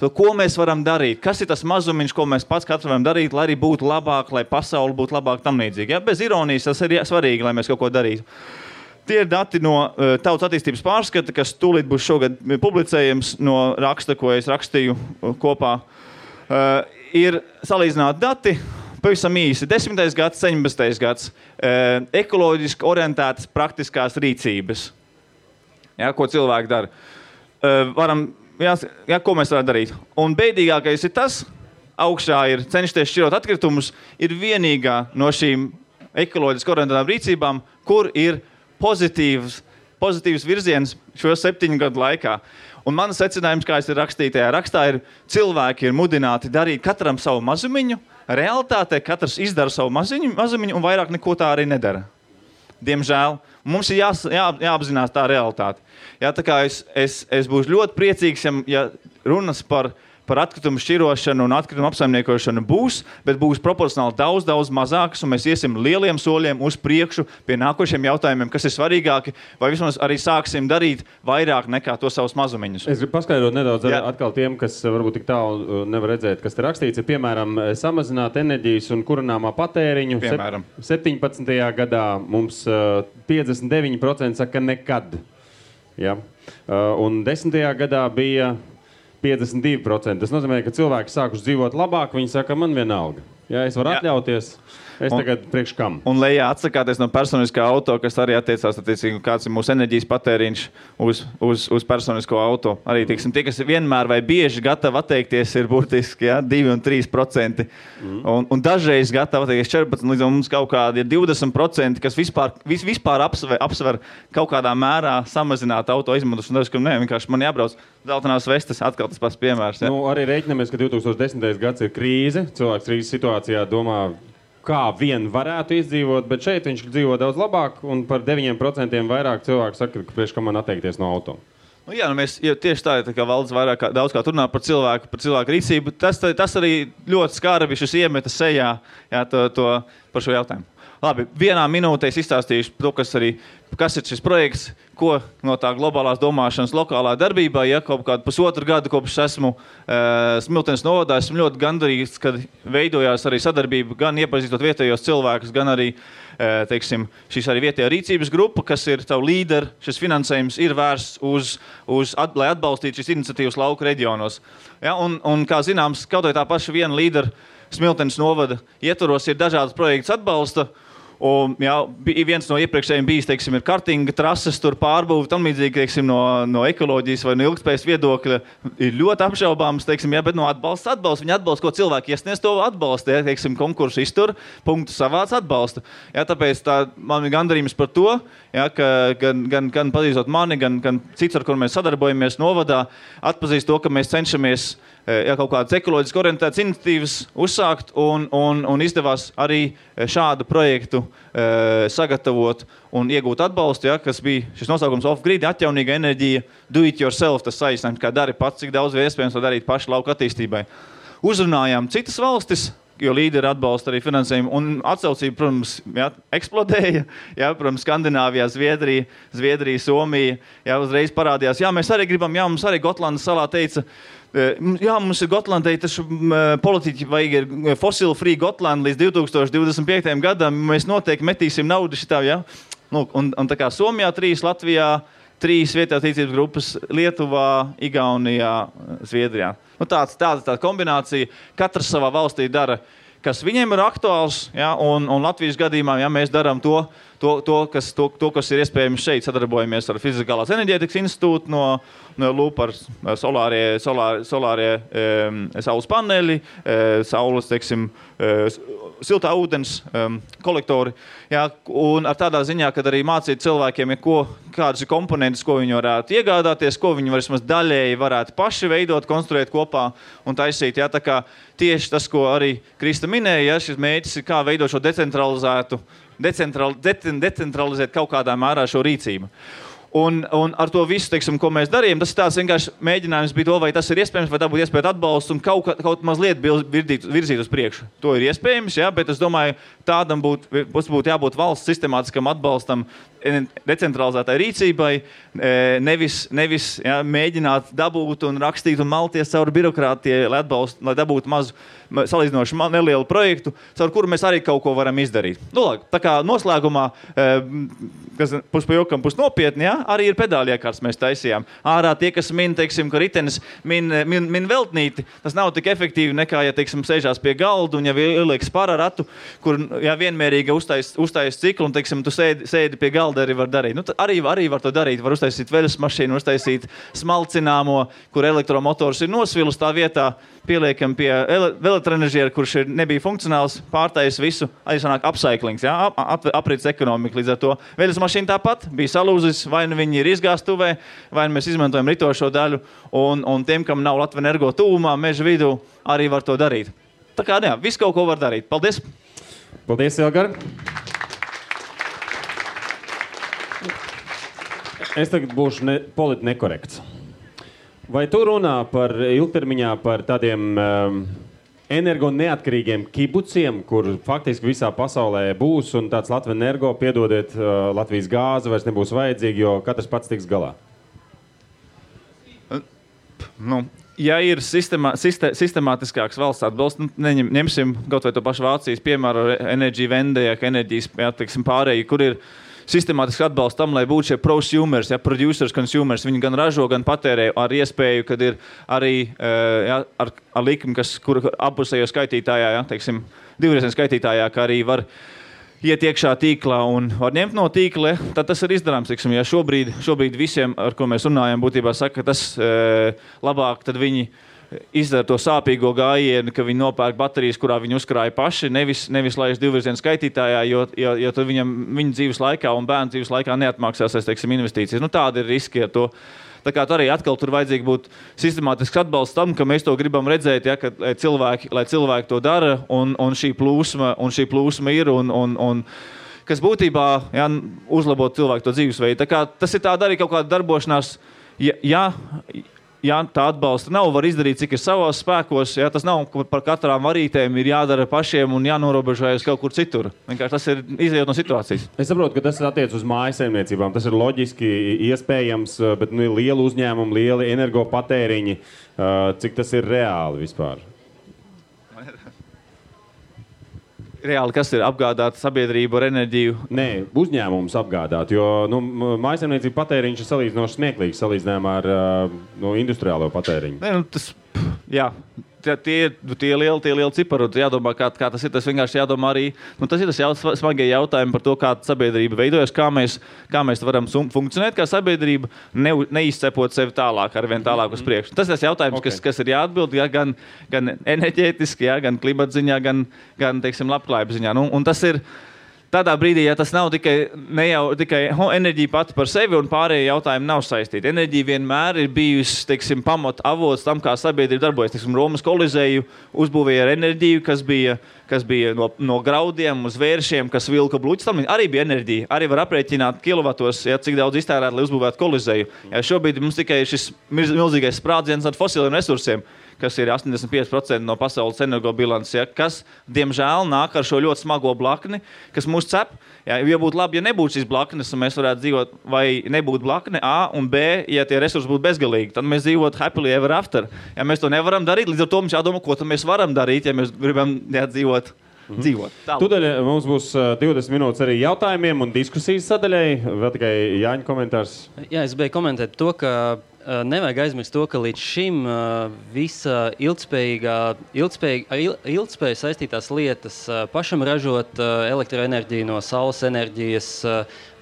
to, ko mēs varam darīt. Kas ir tas mazumiņš, ko mēs pats katrs varam darīt, lai arī būtu labāk, lai pasauli būtu labāk tam līdzīgi. Ja? Bez ironijas tas ir svarīgi, lai mēs kaut ko darītu. Tie ir dati no Tautas attīstības pārskata, kas tūlīt būs šogad publicējams no raksta, ko es rakstīju kopā. Ir salīdzināti dati. Pavisam īsi, 10. gads, 17. gads, ekoloģiski orientētas praktiskās rīcības. Ja, ko cilvēki dara. Ko mēs varam darīt? Un bēdīgākais ir tas, augšā ir cenšties šķirot atkritumus, ir vienīgā no šīm ekoloģiski orientētām rīcībām, kur ir pozitīvs virziens šo 7 gadu laikā. Un mans secinājums, kā es ir rakstītajā rakstā, ir cilvēki ir mudināti darīt katram savu mazumiņu. Realitātē katrs izdara savu mazumiņu un vairāk neko tā arī nedara. Diemžēl. Mums ir jāapzinās tā realitāte. Jā, tā kā es būšu ļoti priecīgs, ja runas par atkritumu šķirošanu un atkritumu apsaimniekošanu būs, bet būs proporcionāli daudz mazākas, un mēs iesim lieliem soļiem uz priekšu pie nākošiem jautājumiem, kas ir svarīgāki, vai vismaz arī sāksim darīt vairāk nekā to savus mazumiņus. Es gribu paskaidrot nedaudz atkal tiem, kas varbūt tik tālu nevar redzēt, kas te rakstīts, ir piemēram samazināt enerģijas un kurināmā patēriņu. Piemēram. 17. gadā mums 59% saka nekad. Ja? Un 10. gadā bija 52%. Tas nozīmē, ka cilvēki sākuši dzīvot labāk, viņi saka, man vienalga. Ja es varu atļauties, es tagad priekš kam. Un lejā atsakāties no personiskā auto, kas arī attiecās, kāds ir mūsu enerģijas patēriņš uz personisko auto. Arī, tie, kas vienmēr vai bieži gatavi atteikties, ir burtiski 2 un 3%. Un dažreiz gatavi atteikties 14%, līdz mums kaut kādi 20%, kas vispār apsver kaut kādā mērā samazināt auto izmantošanu. Dažreiz, ka vienkārši man jābrauc zeltainās vestes, atkal tas pats piemērs. Ja? Arī reiķinamies, ka 2010. gads ir krīze. Cilvēks krīzes situācijā domā, kā vien varētu izdzīvot, bet šeit viņš dzīvo daudz labāk, un par 9% vairāk cilvēku saka, ka priekš kam man atteikties no auto. Mēs tieši tā kā valdes daudz kā runā par cilvēku rīcību, tas arī ļoti skarbi šis iemeta sejā par šo jautājumu. Labi, vienā minūtē es izstāstīšu to, kas ir šis projekts, ko no tā globālās domāšanas lokālā darbībā, kaut kādu pusotru gadu kopš esmu Smiltenes novadā, esmu ļoti gandarīts, kad veidojās arī sadarbība, gan iepazīstot vietējos cilvēkus, gan arī, šīs arī vietējā rīcības grupa, kas ir savu līderi, šis finansējums ir vērsts lai atbalstītu šīs iniciatīvas lauku reģionos. Ja, un kā zināms, kaut vai tā paša viena līdera Smiltenes novada ietvaros ir dažādas projekts atbalsta. Un, viens no iepriekšējiem bijis, ir kartinga trases, tur pārbūvi, tam līdzīgi, no ekoloģijas vai no ilgspējas viedokļa ir ļoti apšaubāms, bet no atbalsta. Viņi atbalsta, ko cilvēki iesniedz, to atbalsta, konkursu iztur, punktu savāc atbalsta. Tāpēc man ir gandarījums par to, ka gan pazīstot mani, gan cits, ar kur mēs sadarbojamies novadā, atpazīst to, ka mēs cenšamies kaut kādas ekoloģiski orientētas iniciatīvas uzsākt un izdevās arī šādu projektu sagatavot un iegūt atbalstu, kas bija šis nosaukums off-grid, atjaunīga enerģija, do it yourself, tas saīsinājums, kā dari pats, cik daudz iespējams to darīt paši lauka attīstībai. Uzrunājām citas valstis, jo līderi atbalsta arī finansējumu, un atsaucība, protams, eksplodēja, protams, Skandināvijā, Zviedrija, Somija, uzreiz parādījās, mēs arī gribam, mums arī Gotlandas salā teica, mums ir Gotlandai, taču politiķi vajag fossil-free Gotlandu līdz 2025. gadam, mēs noteikti metīsim naudu šitā, Un tā kā Somijā 3, Latvijā 3 vietējās attīstības grupas Lietuvā, Igaunijā, Zviedrijā. Tāda kombinācija. Katrs savā valstī dara, kas viņiem ir aktuāls, ja, un Latvijas gadījumā, ja mēs darām to, kas ir iespējams šeit, sadarbojamies ar Fizikālās enerģētikas institūtu no LUP ar solārie saules paneļi, saules, teiksim, siltā ūdens kolektori. Ja, un ar tādā ziņā, kad arī mācīt cilvēkiem, ja kādas ir komponentes, ko viņi varētu iegādāties, ko viņi vismaz daļēji varētu paši veidot, konstruēt kopā un taisīt. Ja, tā kā tieši tas, ko arī Krista minēja, ja, šis mērķis ir kā veidot šo decentralizēt kaut kādā mērā šo rīcību. Un ar to visu, teiksim, ko mēs darījām, tas ir tāds vienkārši mēģinājums bija to, vai tas ir iespējams, vai dabūt iespēju atbalstu un kaut mazliet virzīt uz priekšu. To ir iespējams, ja, bet es domāju, tādam būtu jābūt valsts sistemātiskam atbalstam decentralizētai rīcībai, nevis ja, mēģināt dabūt un rakstīt un malties caur birokrātijai, lai dabūtu mazu salīdzinoši nelielu projektu, caur kuru mēs arī kaut ko varam izdarīt. Tā kā noslēgumā, kas pus pa jokam, pus nopietni, ja, arī ir pedāļu iekārtas mēs taisījām. Ārā tie, kas min, teiksim, ka ritenis min veltnīti, tas nav tik efektīvi nekā, ja, teiksim, sēžās pie galdu un ja ieliek pararatu, kur ja, vienmērīgi uztais ciklu un, teiksim, tu sēdi pie galda arī var darīt. Arī var to darīt. Var uztaisīt veļas mašīnu, uztaisīt smalcināmo, kur elektromotors ir nosvilus tā vietā, pieliekam pie elektroenerģiera, kurš nebija funkcionāls, pārtais visu, arī sanāk upcyclings, ja, aprits ekonomika līdz ar to. Veļas mašīna tāpat bija salūzis, vai nu viņi ir izgāstuvē, vai nu mēs izmantojam ritošo daļu, un tiem, kam nav Latvenergo tuvumā, meža vidū, arī var to darīt. Tā kā, jā, visu kaut ko var darīt. Paldies! Paldies, Elgar! Es tagad būšu politi nekorekts. Vai tu runā par ilgtermiņā par tādiem energo neatkarīgiem kibuciem, kur faktiski visā pasaulē būs un tāds Latvenergo, piedodiet, Latvijas gāze vairs nebūs vajadzīga, jo katrs pats tiks galā? Ja ir sistemātiskāks valsts atbalsts, ņemsim kaut vai to pašu Vācijas piemēru Energy Vendē, enerģijas, jā, teiksim, pārēji, kur ir sistemātiski atbalsts tam, lai būtu šie prosumers, ja, producers, consumers, viņi gan ražo, gan patērē ar iespēju, kad ir arī ja, ar likmi, kur apusējo skaitītājā, ja, teiksim, divreizēm skaitītājā, ka arī var iet iekšā tīklā un var ņemt no tīkla, tad tas ir izdarāms. Teiksim, ja šobrīd visiem, ar ko mēs runājam, būtībā saka, ka tas labāk, tad viņi izdara to sāpīgo gājienu, ka viņi nopērk baterijas, kurā viņi uzkrāja paši, nevis laiž divvirzienu skaitītājā, jo tad viņa dzīves laikā un bērnu dzīves laikā neatmaksās, teiksim, investīcijas. Tāda ir riski ar to. Tā kā arī atkal tur vajadzīgi būt sistemātisks atbalsts tam, ka mēs to gribam redzēt, ja, ka lai cilvēki to dara, un šī plūsma ir, un kas būtībā ja, uzlabot cilvēku to dzīvesveidu. Tā kā tas ir tāda arī kaut kāda darbošanās, ja tā atbalsta nav, var izdarīt, cik ir savos spēkos. Ja, tas nav par katrām varītēm, ir jādara pašiem un jānorobežojas kaut kur citur. Vienkārši tas ir izējot no situācijas. Es saprotu, ka tas attiec uz mājasaimniecībām. Tas ir loģiski iespējams, bet lieli uzņēmumi, lieli energopatēriņi, cik tas ir reāli vispār? Reāli, kas ir apgādāt sabiedrību ar enerģiju? Nē, uzņēmums apgādāt, jo mājasaimniecība patēriņš ir salīdzinoši smieklīgs salīdzinājumā ar industriālo patēriņu. Nē, jā, tie lieli cipari, jādomā, kā tas ir. Tas vienkārši jādomā arī, tas ir tas smagie jautājumi par to, kā sabiedrība veidojas, kā mēs varam funkcionēt kā sabiedrība, neizcepot sevi tālāk, arvien tālāk uz priekšu. Tas ir tas jautājums, okay. kas ir jāatbild, ja, gan enerģētiski, ja, gan klimatziņā, gan teiksim, labklājības ziņā. Un tas ir tādā brīdī, ja tas nav tikai enerģija pati par sevi un pārējie jautājumi nav saistīti. Enerģija vienmēr ir bijusi, teiksim, pamat avots tam, kā sabiedrība darbojas. Teiksim, Romas kolizēju uzbūvēja ar enerģiju, kas bija no graudiem uz vēršiem, kas vilka bluķis. Tam arī bija enerģija. Arī var aprēķināt kilovatos, ja, cik daudz iztērēt, lai uzbūvētu kolizēju. Ja, šobrīd mums tikai šis milzīgais sprādziens ar fosiliem resursiem, kas ir 85% no pasaules energobilances, ja, kas, diemžēl, nāk ar šo ļoti smago blakni, kas mūs cep. Ja, ja būtu labi, ja nebūtu šīs blaknes, un mēs varētu dzīvot, vai nebūtu blakne A un B, ja tie resursi būtu bezgalīgi, tad mēs dzīvotu happily ever after. Ja mēs to nevaram darīt, līdz ar to mums jādomā, ko tad mēs varam darīt, ja mēs gribam dzīvot dzīvot. Tūdaļ mums būs 20 minūtes arī jautājumiem un diskusijas sadaļai. Vēl tikai Jāņa komentārs. Jā, es beju komentēt to, ka nevajag aizmirst to, ka līdz šim visa ilgspēja saistītās lietas, pašam ražot elektroenerģiju no saules enerģijas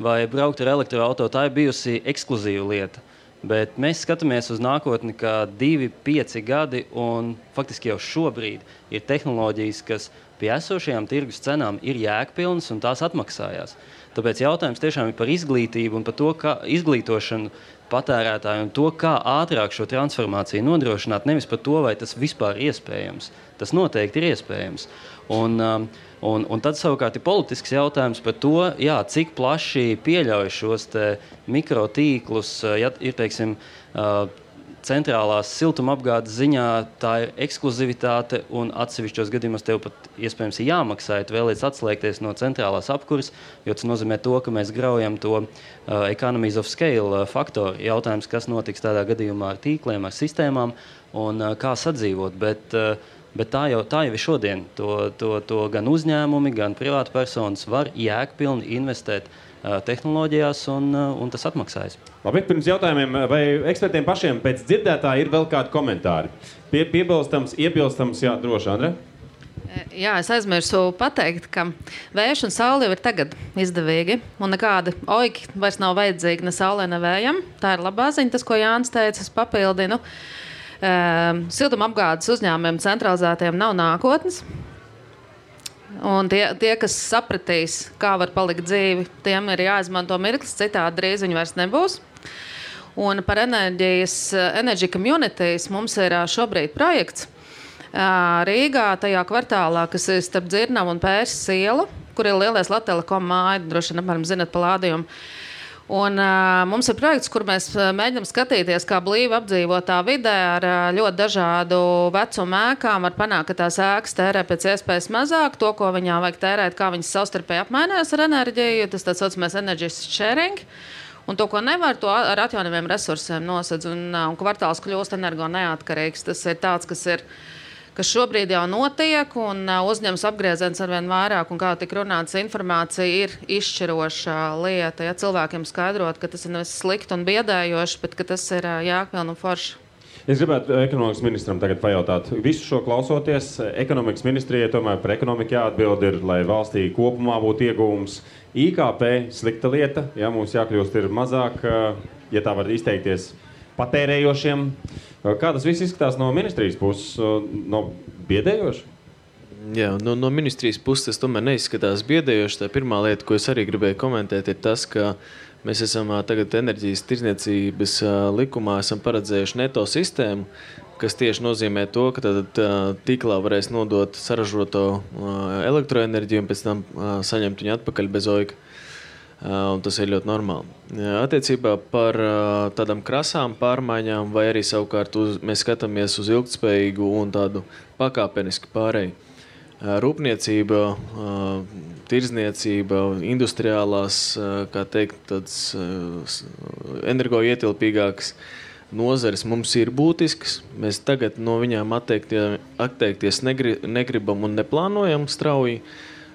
vai braukt ar elektroauto, tā ir bijusi ekskluzīva lieta. Bet mēs skatāmies uz nākotni, ka 2-5 gadi un faktiski jau šobrīd ir tehnoloģijas, kas pie esošajām tirgus cenām ir jēgpilnas un tās atmaksājās. Tāpēc jautājums tiešām ir par izglītību un par to, kā izglītošanu patērētāju un to, kā ātrāk šo transformāciju nodrošināt, nevis par to, vai tas vispār ir iespējams. Tas noteikti ir iespējams. Un tad savukārt ir politisks jautājums par to, jā, cik plaši pieļauj šos te mikrotīklus, ja ir, teiksim, centrālās siltumapgādes ziņā tā ir ekskluzivitāte un atsevišķos gadījumos tev pat iespējams ir jāmaksā, ja tu vēlies atslēgties no centrālās apkuras, jo tas nozīmē to, ka mēs graujam to economies of scale faktoru. Jautājums, kas notiks tādā gadījumā ar tīkliem, ar sistēmām un kā sadzīvot, bet tā jau ir šodien. To gan uzņēmumi, gan privātpersonas var jēgpilni investēt tehnoloģijās un tas atmaksājas. Labi, pirms jautājumiem, vai ekspertiem pašiem pēc dzirdētā ir vēl kādi komentāri? Piebilstams, iebilstams, jā, droši, Andre? Jā, es aizmirsu pateikt, ka vējš un saule jau ir tagad izdevīgi, un nekādi oiki vairs nav vajadzīgi ne saulē, ne vējam. Tā ir labā ziņa, tas, ko Jānis teica, es papildinu. Siltumapgādes uzņēmumiem centralizētiem nav nākotnes. Un tie, kas sapratīs, kā var palikt dzīvi, tiem ir jāizmanto mirklis, citādi drīz viņi vairs nebūs. Un par Energy Communities mums ir šobrīd projekts Rīgā, tajā kvartālā, kas ir starp Dzirnavu un Pērses ielu, kur ir lielais Latelekom māja, droši vien, apmēram zinat pa lādījumu. Un mums ir projekts, kur mēs mēģinām skatīties, kā blīvi apdzīvotā vidē ar ļoti dažādu vecumu ēkām var panākt, ka tās ēkas tērē pēc iespējas mazāk, to, ko viņā vajag tērēt, kā viņas savstarpēji apmainās ar enerģiju, tas tāds saucamais energy sharing. Un to, ko nevar, to ar atjaunīgiem resursiem nosedz, un kvartāls kļūst energo neatkarīgs. Tas ir tāds, kas šobrīd jau notiek, un uzņems apgrieziens arvien vairāk, un kā tik runāts, informācija ir izšķiroša lieta. Ja cilvēkiem skaidrot, ka tas ir nevis slikti un biedējoši, bet ka tas ir jēgpilni un forši. Es gribētu ekonomikas ministram tagad pajautāt. Visu šo klausoties, ekonomikas ministrijai tomēr par ekonomiku jāatbild ir, lai valstī kopumā būtu ieguvums. IKP slikta lieta, ja mums jākļūst ir mazāk, ja tā var izteikties, patērējošiem. Kā tas viss izskatās no ministrijas puses? No biedējoši? Jā, no ministrijas puses tas tomēr neizskatās biedējoši. Tā pirmā lieta, ko es arī gribēju komentēt, ir tas, ka mēs esam tagad enerģijas tirdzniecības likumā esam paredzējuši neto sistēmu, kas tieši nozīmē to, ka tad tīklā varēs nodot saražoto elektroenerģiju un pēc tam saņemt viņu atpakaļ bez oika. Un tas ir ļoti normāli. Attiecībā par tādām krasām pārmaiņām vai arī savukārt mēs skatāmies uz ilgtspējīgu un tādu pakāpenisku pārēju. Rūpniecība, tirdzniecība, industriālās, kā teikt, tāds energoietilpīgākas nozares mums ir būtisks. Mēs tagad no viņām atteikties negribam un neplānojam strauji.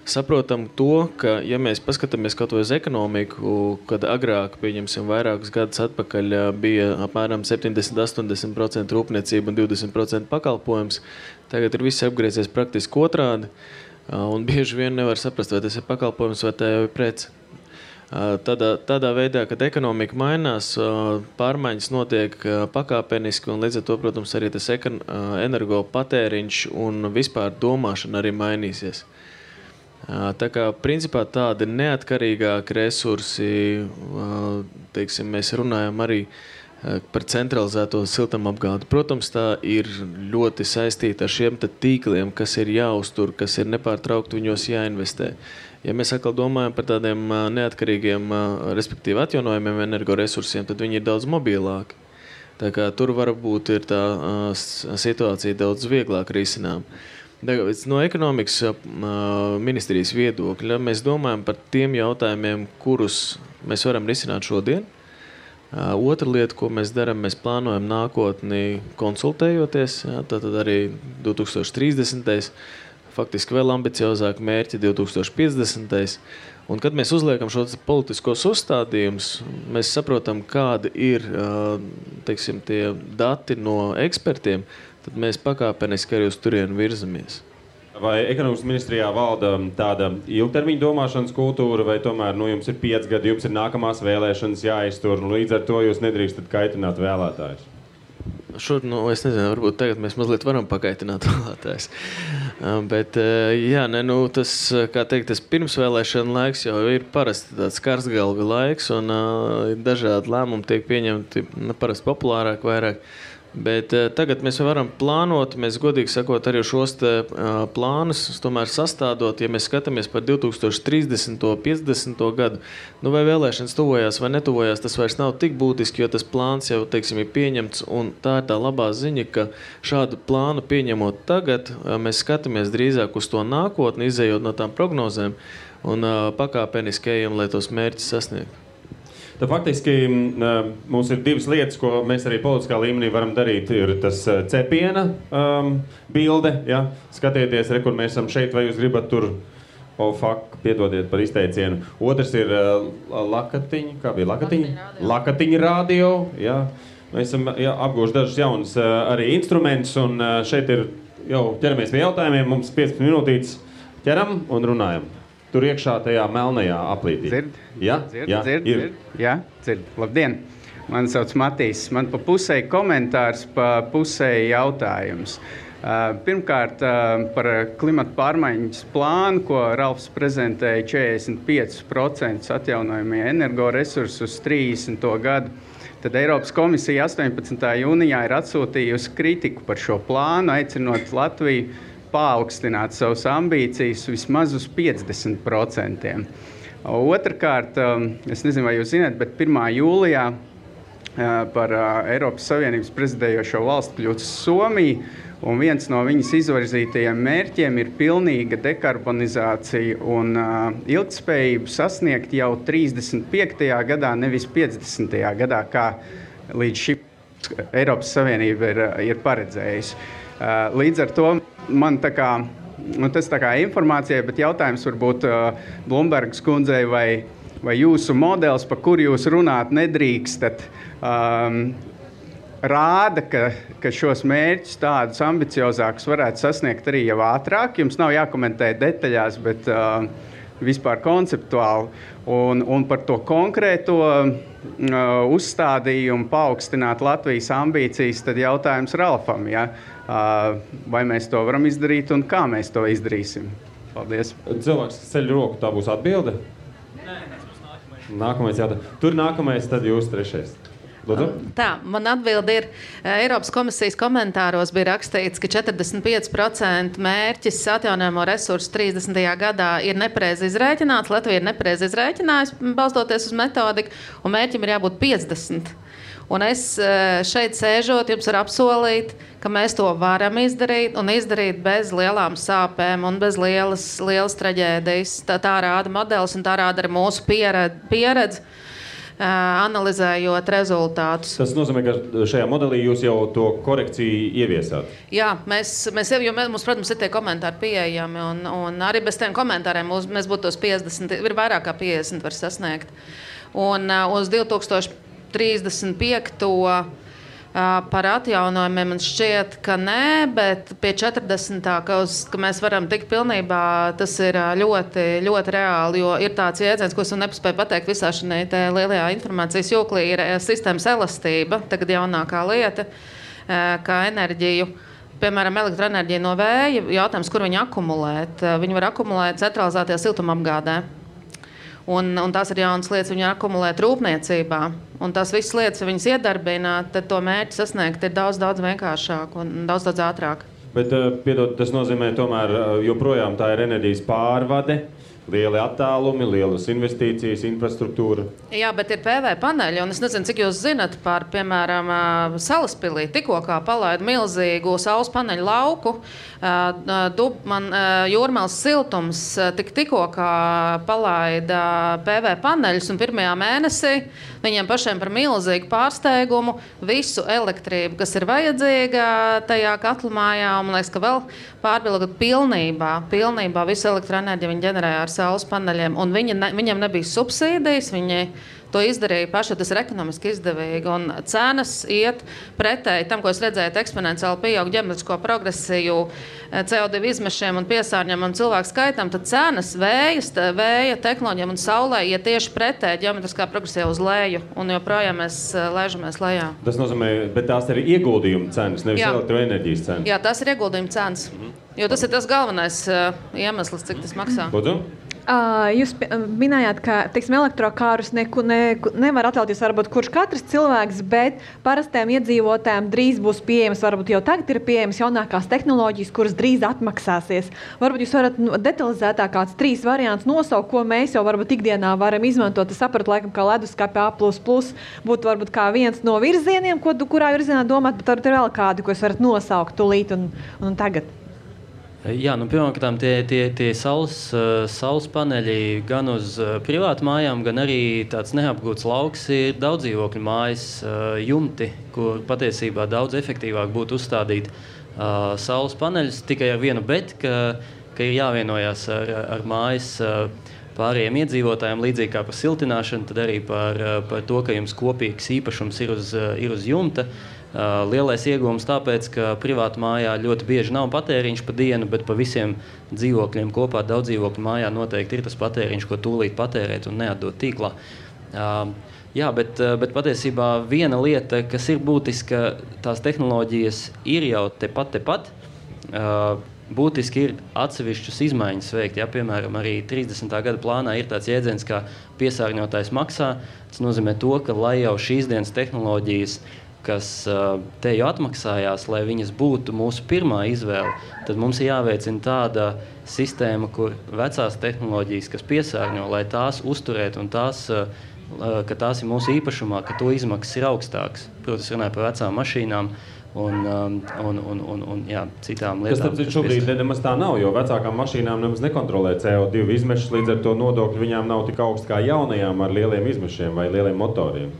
Saprotam to, ka, ja mēs paskatāmies kaut vai uz ekonomiku, kad agrāk, pieņemsim, vairākus gadus atpakaļ bija apmēram 70-80% rūpniecība un 20% pakalpojums, tagad ir viss apgriezies praktiski otrādi, un bieži vien nevar saprast, vai tas ir pakalpojums vai tā jau ir prece. Tādā veidā, kad ekonomika mainās, pārmaiņas notiek pakāpeniski, un līdz ar to, protams, arī tas energo patēriņš un vispār domāšana arī mainīsies. Tā kā principā tādi neatkarīgāki resursi, teiksim, mēs runājam arī par centralizēto siltumapgādi. Protams, tā ir ļoti saistīta ar šiem tīkliem, kas ir jāuztur, kas ir nepārtraukti viņos jāinvestē. Ja mēs atkal domājam par tādiem neatkarīgiem, respektīvi atjaunojumiem energoresursiem, tad viņi ir daudz mobilāki. Tā kā tur varbūt ir tā situācija daudz vieglāk risinām. No ekonomikas ministrijas viedokļa mēs domājam par tiem jautājumiem, kurus mēs varam risināt šodien. Otra lieta, ko mēs darām, mēs plānojam nākotni konsultējoties, tātad arī 2030. faktiski vēl ambiciozāk mērķi 2050. Un, kad mēs uzliekam šos politiskos uzstādījumus, mēs saprotam, kādi ir teiksim, tie dati no ekspertiem, tad mēs pakāpeniski arī uz turienu virzamies. Vai ekonomikas ministrijā valda tāda ilgtermiņa domāšanas kultūra, vai tomēr jums ir 5 gadi, jums ir nākamās vēlēšanas jāiztur, un līdz ar to jūs nedrīkstat kaitināt vēlētājus? Es nezinu, varbūt tagad mēs mazliet varam pakaitināt vēlētājus. Bet, tas, kā teikt, tas pirmsvēlēšana laiks jau ir parasti tāds karsgalvi laiks, un dažādi lēmumi tiek pieņemti parasti populārāk vairāk. Bet tagad mēs varam plānot, mēs godīgi sakot arī šos plānus tomēr sastādot, ja mēs skatāmies par 2030. 50. gadu, vai vēlēšanas tuvojās vai netuvojās, tas vairs nav tik būtiski, jo tas plāns jau, teiksim, ir pieņemts, un tā ir tā labā ziņa, ka šādu plānu pieņemot tagad, mēs skatāmies drīzāk uz to nākotni, izējot no tām prognozēm, un pakāpeniski ejam, lai tos mērķus sasniegtu. Tad faktiski mums ir 2 lietas, ko mēs arī politiskā līmenī varam darīt. Ir tas cepiena bilde, ja? Skatieties, kur mēs esam šeit, vai jūs gribat tur, piedodiet par izteicienu. Otrs ir lakatiņa, kā bija lakatiņa? Lakatiņa radio, ja? Mēs esam apgūši dažus jaunus arī instrumentus, un šeit ir jau ķeramies pie jautājumiem, mums 15 minūtītes ķeram un runājam. Tur iekšā tajā melnajā aplītī. Dzird. Labdien! Mani sauc Matīs. Man pa pusēji komentārs, pa pusēji jautājums. Pirmkārt, par klimata pārmaiņas plānu, ko Ralfs prezentēja 45% atjaunojamie energoresursi uz 30. gadu. Tad Eiropas komisija 18. jūnijā ir atsūtījusi kritiku par šo plānu, aicinot Latviju paaugstināt savas ambīcijas vismaz uz 50%. Otrakārt, es nezinu, vai jūs zināt, bet 1. jūlijā par Eiropas Savienības prezidējošo valstu kļūst Somija, un viens no viņas izvirzītajiem mērķiem ir pilnīga dekarbonizācija un ilgtspējību sasniegt jau 35. gadā, nevis 50. gadā, kā līdz šim Eiropas Savienība ir paredzējusi. Līdz ar to man tas tā kā informācija, bet jautājums varbūt Blumbergas kundzei vai jūsu modelis, par kuru jūs runāt nedrīkstat, rāda, ka šos mērķus tādus ambiciozākus varētu sasniegt arī jau ātrāk. Jums nav jākomentē detaļās, bet vispār konceptuāli. Un par to konkrēto uzstādījumu paaugstināt Latvijas ambīcijas, tad jautājums Ralfam, ja? Vai mēs to varam izdarīt un kā mēs to izdarīsim? Paldies. Cilvēks ceļ roku, tā būs atbilde? Nē, tas būs nākamais. Nākamais jautājums. Tur nākamais, tad jūs trešais. Lūdzu? Tā, man atbilde ir, Eiropas komisijas komentāros bija rakstīts, ka 45% mērķis atjaunojamo resursu 30. gadā ir nepareizi izrēķināts, Latvija ir nepareizi izrēķinājusi, balstoties uz metodiku, un mērķim ir jābūt 50%. Un es šeit sēžot, jums var apsolīt, ka mēs to varam izdarīt un izdarīt bez lielām sāpēm un bez lielas traģēdijas. Tā rāda modelis un tā rāda arī mūsu pieredze, analizējot rezultātus. Tas nozīmē, ka šajā modelī jūs jau to korekciju ieviesāt? Jā, mums, protams, ir tie komentāri pieejami, un arī bez tiem komentāriem mēs būtu tos 50, ir vairāk kā 50 var sasniegt. Un uz 2035. Par atjaunojumiem man šķiet, ka nē, bet pie 40. ka mēs varam tikt pilnībā, tas ir ļoti, ļoti reāli, jo ir tāds jēdziens, ko es nepaspēju pateikt visā šajā lielajā informācijas joklī, ir sistēmas elastība, tagad jaunākā lieta, kā enerģiju. Piemēram, elektroenerģija no vēja, jautājums, kur viņi akumulēt. Viņi var akumulēt centralizētajā siltumapgādē. Un tās ir jaunas lietas, viņi akumulēt rūpniecībā. Un tās visas lietas, ja viņas iedarbina, tad to mērķi sasniegt ir daudz vienkāršāk un daudz ātrāk. Bet, piedod, tas nozīmē tomēr joprojām tā ir enerģijas pārvade. lieli attālumi, lielas investīcijas, infrastruktūra. Jā, bet ir PV paneļi, un es nezinu, cik jūs zinat par, piemēram, Salaspilī. Tikko kā palaida milzīgu saules paneļu lauku, Jūrmālas siltums tikko kā palaida PV paneļus, un pirmajā mēnesī viņiem pašiem par milzīgu pārsteigumu visu elektrību, kas ir vajadzīga tajā katlamājā, un man liekas, ka vēl pārbilgot pilnībā visu elektroenerģiju viņi ģenerēja ar saules paneļiem, un viņiem nebija subsīdijas, viņi to izdarīja paši, tas ir ekonomiski izdevīgi, un cenas iet pretēji tam, ko es redzēju, eksponenciāli pieaug ģeometrisko progresiju CO2 izmešiem un piesārņiem un cilvēku skaitam, tad cenas vēja tehnoloģiem un saulē iet tieši pretēji ģeometriskā progresija uz leju, un joprojām mēs lēžamies lejā. Tas nozīmē, bet tās ir ieguldījuma cenas, nevis elektroenerģijas cenas. Jā, tas ir ieguldījuma cenas, jo tas ir tas galvenais iemesls, cik tas maksā. Lūdzu? Jūs minējāt, ka elektrokārus nevar atļauties varbūt kurš katrs cilvēks, bet parastiem iedzīvotājiem drīz būs pieejams, varbūt jau tagad ir pieejams jaunākās tehnoloģijas, kuras drīz atmaksāsies. Varbūt jūs varat detalizētāk kāds 3 variants nosaukt, ko mēs jau varbūt ikdienā varam izmantot. Es sapratu, laikam, ka leduskapi A++ būtu varbūt kā viens no virzieniem, kurā virzienā domāt, bet varbūt ir vēl kādi, ko jūs varat nosaukt tūlīt un tagad. Jā, pirmkārt, tie saules paneļi gan uz privātu mājām, gan arī tāds neapgūts lauks ir daudzdzīvokļu mājas jumti, kur patiesībā daudz efektīvāk būtu uzstādīt saules paneļus tikai ar vienu bet, ka ir jāvienojās ar mājas pārējiem iedzīvotājiem, līdzīgi kā par siltināšanu, tad arī par to, ka jums kopīgs īpašums ir uz jumta. Lielais iegūms tāpēc, ka privātu mājā ļoti bieži nav patēriņš pa dienu, bet pa visiem dzīvokļiem kopā daudzdzīvokļu mājā noteikti ir tas patēriņš, ko tūlīt patērēt un neatdot tīklā. Jā, bet patiesībā viena lieta, kas ir būtiska, tās tehnoloģijas ir jau tepat. Būtiski ir atsevišķas izmaiņas veikt. Ja, piemēram, arī 30. gada plānā ir tāds jēdziens, kā piesārņotājs maksā. Tas nozīmē to, ka lai jau šīs dienas tehnoloģijas, kas te jau atmaksājās, lai viņas būtu mūsu pirmā izvēle, tad mums ir jāveicina tāda sistēma, kur vecās tehnoloģijas, kas piesārņo, lai tās uzturētu un ka tās ir mūsu īpašumā, ka to izmaksas ir augstāks. Protams, runāju par vecām mašīnām un citām lietām. Tas šobrīd nemaz tā nav, jo vecākām mašīnām nemaz nekontrolē CO2 izmešus, līdz ar to nodokļi viņām nav tik augsts kā jaunajām ar lieliem izmešiem vai lieliem motoriem.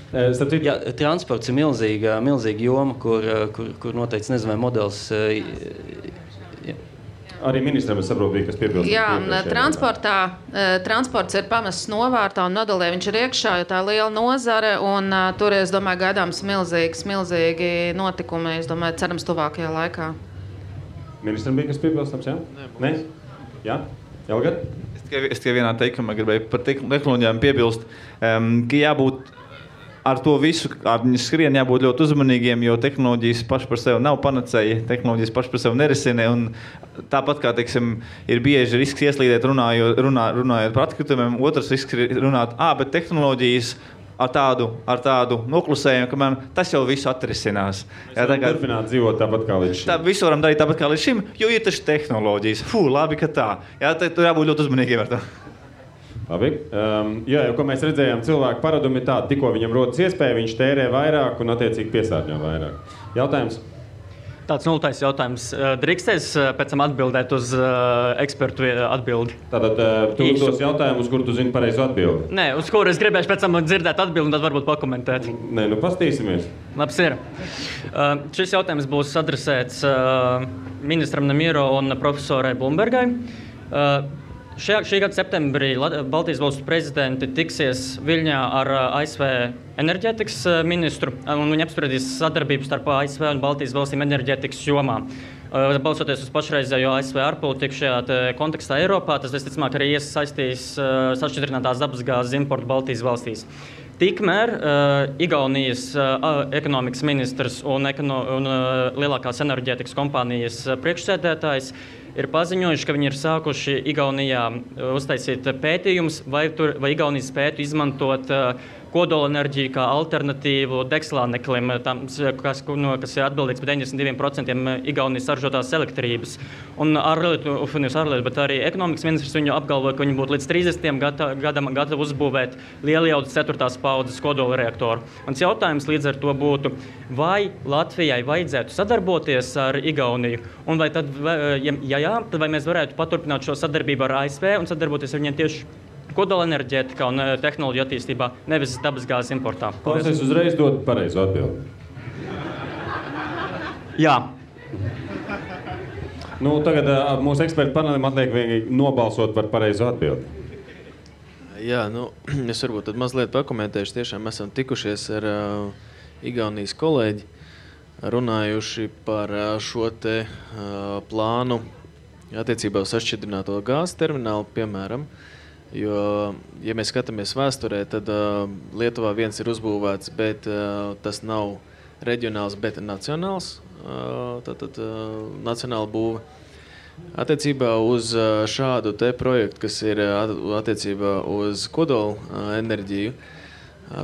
Jā, transports ir milzīga joma, kur noteikti nezinu, vai modelis... Arī ministram es saprotu, kas piebilst. Jā, transports ir pamests novārtā un nodalē viņš ir iekšā, jo tā liela nozare, un tur, es domāju, gaidāms milzīgi notikumi, es domāju, cerams tuvākajā laikā. Ministram bija kas piebilstams, jā? Nē? Jā? Elgad? Es tikai vienā teikumā gribēju par tehnoloģijām piebilst, ka jābūt ar to visu, ar viņu skrien jābūt ļoti uzmanīgiem, jo tehnoloģijas paši par sevi nav panacēja, tehnoloģijas paši par sevi nerisina, un tāpat kā, teiksim, ir bieži risks ieslīdēt runājot par atkritumiem, otrs risks ir runāt, bet tehnoloģijas ar tādu noklusējumu, ka tas jau visu atrisinās. Mēs varam turpināt dzīvot tāpat kā līdz šim. Visu varam darīt tāpat kā līdz šim, jo ir taču tehnoloģijas. Labi, ka tā. Jā, tur jābūt ļoti uzmanīgiem ar to. Labi. Jo, ko mēs redzējām, cilvēku paradumi ir tādi, tikko viņam rodas iespēja, viņš tērē vairāk un attiecīgi piesārņo vairāk. Jautājums? Tāds nultais jautājums. Drīkstēs pēc tam atbildēt uz ekspertu atbildi? Tātad tu uzdos jautājumu, uz kuru tu zini pareizo atbildi? Nē, uz kuru es gribēšu pēc tam dzirdēt atbildi un tad varbūt pakomentēt. Nē, pastīsimies. Labs ir. Šis jautājums būs adresēts ministram Nemiero un profesorai Blumbergai. Šī gada septembrī Baltijas valstu prezidenti tiksies Viļņā ar ASV enerģētikas ministru, un viņi apspriedīs sadarbību starp ASV un Baltijas valstīm enerģētikas jomā. Balsoties uz pašreizējo ASV ārpolitiku šajā kontekstā Eiropā, tas visticamāk arī iesaistīs sašķidrinātās dabasgāzes importu Baltijas valstīs. Tikmēr Igaunijas ekonomikas ministrs un lielākās enerģētikas kompānijas priekšsēdētājs ir paziņojuši, ka viņi ir sākuši Igaunijā uztaisīt pētījumus, vai Igaunija spētu izmantot kodolenerģiju kā alternatīvu degslāneklim, kas ir atbildīgs par 92% Igaunijas saražotās elektrības. Un bet arī ekonomikas ministrs viņu apgalvoja, ka viņi būtu līdz 30. gadam gatavi uzbūvēt lielijaudas 4. paudzes kodolreaktoru. Mans jautājums līdz ar to būtu, vai Latvijai vajadzētu sadarboties ar Igauniju? Un vai tad, ja jā, tad vai mēs varētu paturpināt šo sadarbību ar ASV un sadarboties ar viņiem tieši kodolenerģētikā un tehnoloģiju attīstībā, nevis dabasgāzes importā? Es uzreiz dodu pareizu atbildi. Jā. Tagad mūsu ekspertu panelim atliek vienīgi nobalsot par pareizu atbildi. Jā, es varbūt tad mazliet pakomentēšu. Tiešām esam tikušies ar Igaunijas kolēģi, runājuši par šo te plānu attiecībā uz sašķidrināto gāzes terminālu, piemēram. Jo, ja mēs skatāmies vēsturē, tad Lietuvā viens ir uzbūvēts, bet tas nav reģionāls, bet nacionāls, nacionāla būve. Attiecībā uz šādu te projektu, kas ir attiecībā uz kodola enerģiju,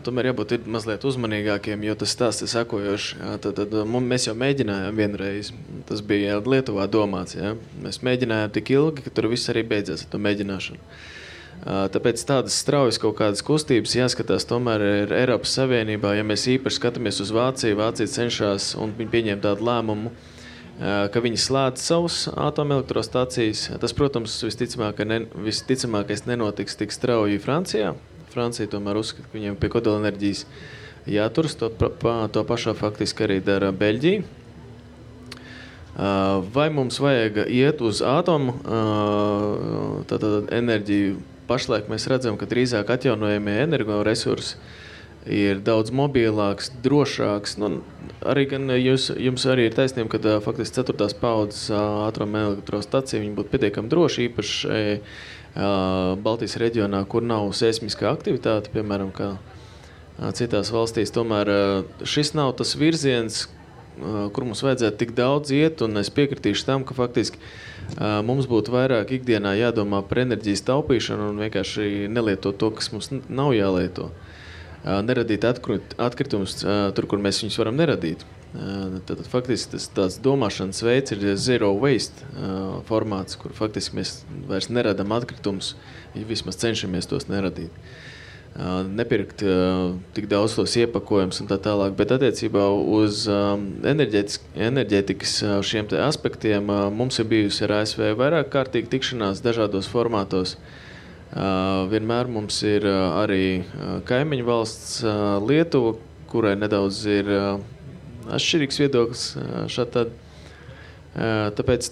tomēr jābūt mazliet uzmanīgākiem, jo tas stāsts ir sekojošs. Mēs jau mēģinājām vienreiz, tas bija Lietuvā domāts, ja? Mēs mēģinājām tik ilgi, ka tur viss arī beidzās ar to mēģināšanu. Tāpēc tādas straujas kaut kādas kustības jāskatās tomēr ir Eiropas Savienībā. Ja mēs īpaši skatāmies uz Vāciju, Vācija cenšas un viņi pieņem tādu lēmumu, ka viņi slēdz savus atomelektrostacijas. Tas, protams, visticamākais nenotiks tik strauji Francijā. Francija tomēr uzskata, ka viņiem pie kodolenerģijas jāturas. To pašā faktiski arī dara Beļģija. Vai mums vajag iet uz atomu enerģiju? Pašlaik mēs redzam, ka drīzāk atjaunojamie energoresursi ir daudz mobilāks, drošāks. Arī gan jums arī ir taisnība, ka faktiski 4. paudzes atomelektrostacija viņi būtu pietiekami droši, īpaši Baltijas reģionā, kur nav seismiskā aktivitāte, piemēram, kā citās valstīs. Tomēr šis nav tas virziens, kur mums vajadzētu tik daudz iet, un es piekritīšu tam, ka faktiski mums būtu vairāk ikdienā jādomā par enerģijas taupīšanu un vienkārši nelietot to, kas mums nav jālieto. Neradīt atkritumus tur, kur mēs viņus varam neradīt. Tad faktiski tas tāds domāšanas veids ir zero waste formāts, kur faktiski mēs vairs neradam atkritumus, ja vismaz cenšamies tos neradīt. Nepirkt tik daudz tos iepakojumus un tā tālāk, bet attiecībā uz enerģētikas šiem te aspektiem mums ir bijusi ar ASV vairāk kārtīgi tikšanās dažādos formātos. Vienmēr mums ir arī kaimiņu valsts Lietuva, kurai nedaudz ir atšķirīgs viedoklis šādi. Tāpēc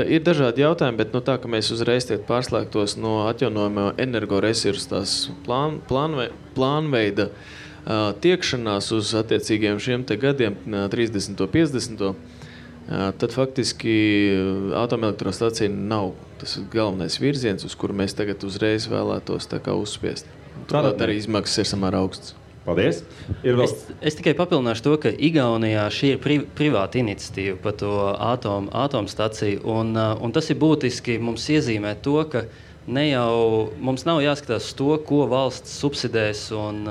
ir dažādi jautājumi, bet tā, ka mēs uzreiz pārslēgtos no atjaunojamo energoresursu tās plānveida tiekšanās uz attiecīgiem šiem te gadiem, 30. 50. Tad faktiski atomelektrostacija nav tas galvenais virziens, uz kuru mēs tagad uzreiz vēlētos tā kā uzspiest. Turklāt arī izmaksas ir samērā augsts. Paldies. Es tikai papildināšu to, ka Igaunijā šī ir privāta iniciatīva par to atomstaciju, un tas ir būtiski mums iezīmēt to, ka mums nav jāskatās to, ko valsts subsidēs un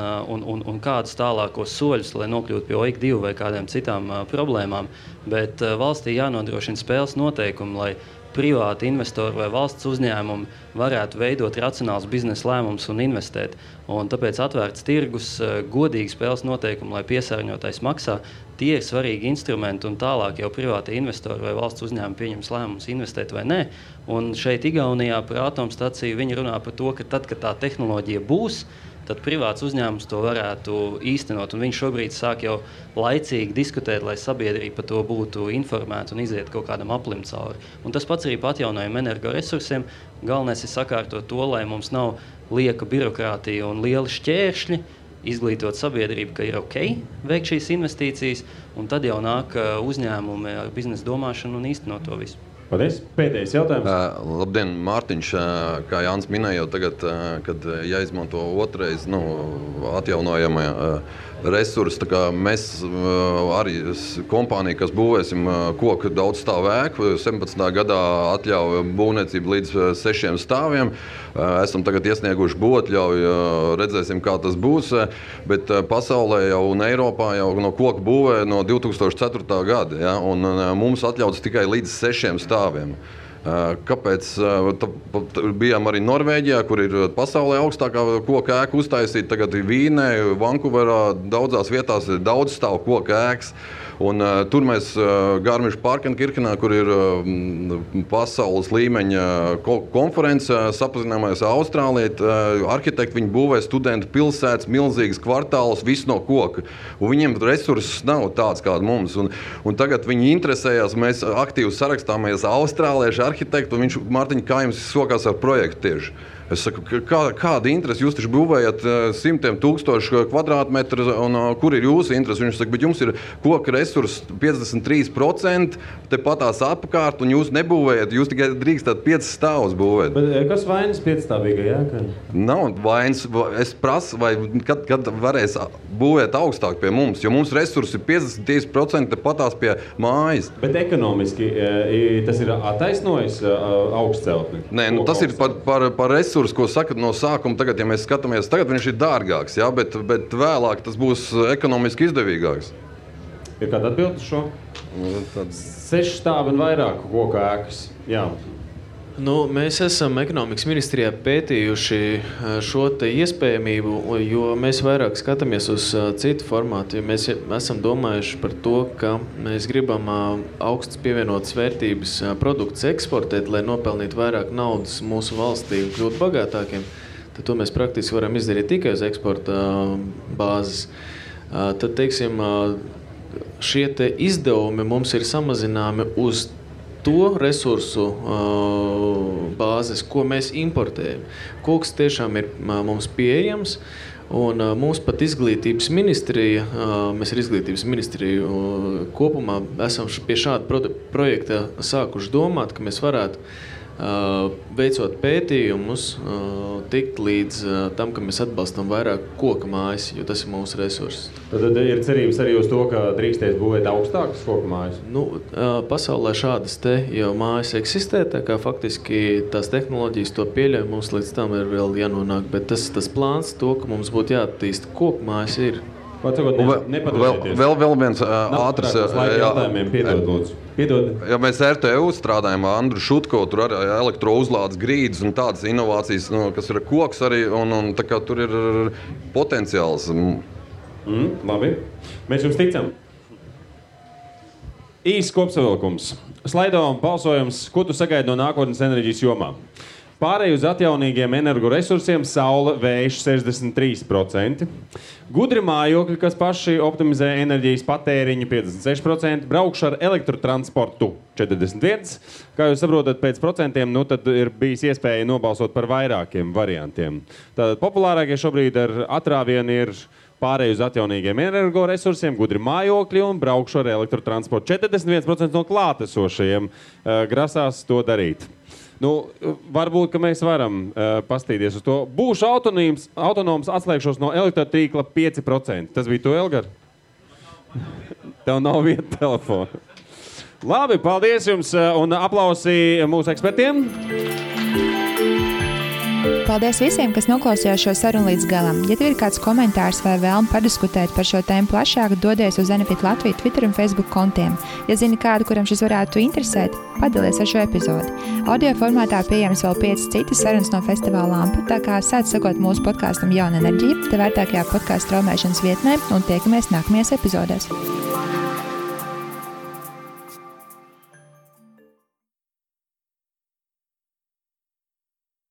kādus tālākos soļus, lai nokļūtu pie OIK2 vai kādiem citām problēmām, bet valstī jānodrošina spēles noteikumi, lai privāti investori vai valsts uzņēmumi varētu veidot racionāls biznesa lēmumus un investēt. Un tāpēc atvērts tirgus, godīgi spēles noteikumi, lai piesārņotājs maksā, tie ir svarīgi instrumenti un tālāk jau privāti investori vai valsts uzņēmumi pieņems lēmumus investēt vai nē. Un šeit Igaunijā par atomstaciju viņi runā par to, ka tad, kad tā tehnoloģija būs, tad privāts uzņēmums to varētu īstenot. Un viņš šobrīd sāk jau laicīgi diskutēt, lai sabiedrība par to būtu informēta un iziet kaut kādam aplim cauri. Un tas pats arī par atjaunojumu energoresursiem. Galvenais ir sakārtot to, lai mums nav lieka birokrātija un lieli šķēršļi, izglītot sabiedrību, ka ir ok veikt šīs investīcijas, un tad jau nāk uzņēmumi ar biznesa domāšanu un īstenot to visu. Paldies. Pēdējais jautājums. Labdien, Mārtiņš. Kā Jānis minēja jau tagad, kad jāizmanto otrais atjaunojama resursi. Mēs arī kompānija, kas būvēsim koku daudz stāvu ēku, 17. gadā atļauja būvniecību līdz 6 stāviem. Esam tagad iesnieguši būvatļauju, redzēsim, kā tas būs, bet pasaulē jau un Eiropā jau no koku būvē no 2004. gada, ja, un mums atļauts tikai līdz 6 stāviem. Kāpēc? Bijām arī Norvēģijā, kur ir pasaulē augstākā koka ēka uztaisīta. Tagad Vīnē, Vankūverā, daudzās vietās ir daudz stāvu koka ēkas. Un, tur mēs Garmisch-Partenkirchenā, kur ir pasaules līmeņa konference, sapazināmies Austrālijā. Arhitekti viņi būvē studentu pilsētas, milzīgas kvartālus, viss no koka. Un viņiem resursus nav tāds kāds mums. Un tagad viņi interesējās, mēs aktīvi sarakstāmies austrāliešu arhitektu, un viņš, Mārtiņ, kā jums sokās ar projektu tieši? Es saku, kāda interese? Jūs taču būvējat 100,000 kvadrātmetru, un kur ir jūsu interese? Viņš saka, bet jums ir koka resursi 53%, tepatās apkārt, un jūs nebūvējat, jūs tikai drīkstat 5 stāvus būvēt. Bet kas vainas 5-stāvīgajā ēkā? Nav vainas. Es prasu, vai kad varēs būvēt augstāk pie mums, jo mums resursi ir 53% tepatās pie mājas. Bet ekonomiski tas ir attaisnojis augstceltni? Nē, tas ir par resursu, ko saka no sākuma. Tagad, ja mēs skatāmies, tagad viņš ir dārgāks, ja, bet vēlāk tas būs ekonomiski izdevīgāks. Ir kāda atbilde uz šo? 6 stāvi un vairāk koka ēkas. Jā. Mēs esam ekonomikas ministrijā pētījuši šo te iespējamību, jo mēs vairāk skatāmies uz citu formātu. Mēs esam domājuši par to, ka mēs gribam augstas pievienotas vērtības produktus eksportēt, lai nopelnītu vairāk naudas mūsu valstī un kļūtu bagātākiem. Tad to mēs praktiski varam izdarīt tikai uz eksporta bāzes. Tad, teiksim, šie te izdevumi mums ir samazināmi uz to resursu bāzes, ko mēs importējam. Koks tiešām ir mums pieejams, un mums pat izglītības ministrija, mēs ar izglītības ministriju kopumā esam pie šāda projekta sākuši domāt, ka mēs varētu veicot pētījumus, tikt līdz tam, ka mēs atbalstam vairāk koka mājas, jo tas ir mūsu resurss. Tad ir cerības arī uz to, ka drīkstēs būvēt augstākas koka mājas? Pasaulē šādas te jau mājas eksistē, tā kā faktiski tās tehnoloģijas to pieļauj, mums līdz tam ir vēl jānonāk, bet tas plāns to, ka mums būtu jāattīst koka mājas ir. Vēl viens ātrs jautājumiem, piedod, lūdzu. Ja mēs RTU strādājam ar Andru Šutko, tur arī elektrouzlādes grīdas un tādas inovācijas, kas ir koks arī, un tā kā tur ir potenciāls. Labi. Mēs jums ticam. Īsts kopsavilkums. Slaido un balsojums, ko tu sagaidi no nākotnes enerģijas jomā? Pārēj uz atjaunīgiem energoresursiem saule, vējš 63%, gudri mājokļi, kas paši optimizē enerģijas patēriņu 56%, braukšu ar elektrotransportu 41%. Kā jūs saprotat, pēc procentiem, tad ir bijis iespēja nobalsot par vairākiem variantiem. Tātad populārākie šobrīd ar atrāvienu ir pārēj uz atjaunīgiem energoresursiem, gudri mājokļi un braukšu ar elektrotransportu. 41% no klātesošajiem grasās to darīt. Varbūt, ka mēs varam pastīties uz to. Būšu autonoms, atslēgšos no elektrotīkla 5%. Tas bija to, Elgar? Tev nav vieta telefona. Labi, paldies jums un aplausi mūsu ekspertiem. Paldies visiem, kas noklausījās šo sarunu līdz galam. Ja tev ir kāds komentārs vai vēlme padiskutēt par šo tēmu plašāk, dodies uz Enefit Latviju Twitter un Facebook kontiem. Ja zini kādu, kuram šis varētu interesēt, padalies ar šo epizodi. Audio formātā pieejams vēl 5 citas sarunas no festivāla Lampa, tā kā sāc sekot mūsu podkastam Jauna enerģija, te vērtākajā podkastu straumēšanas vietnē un tiekamies nākamajās epizodēs.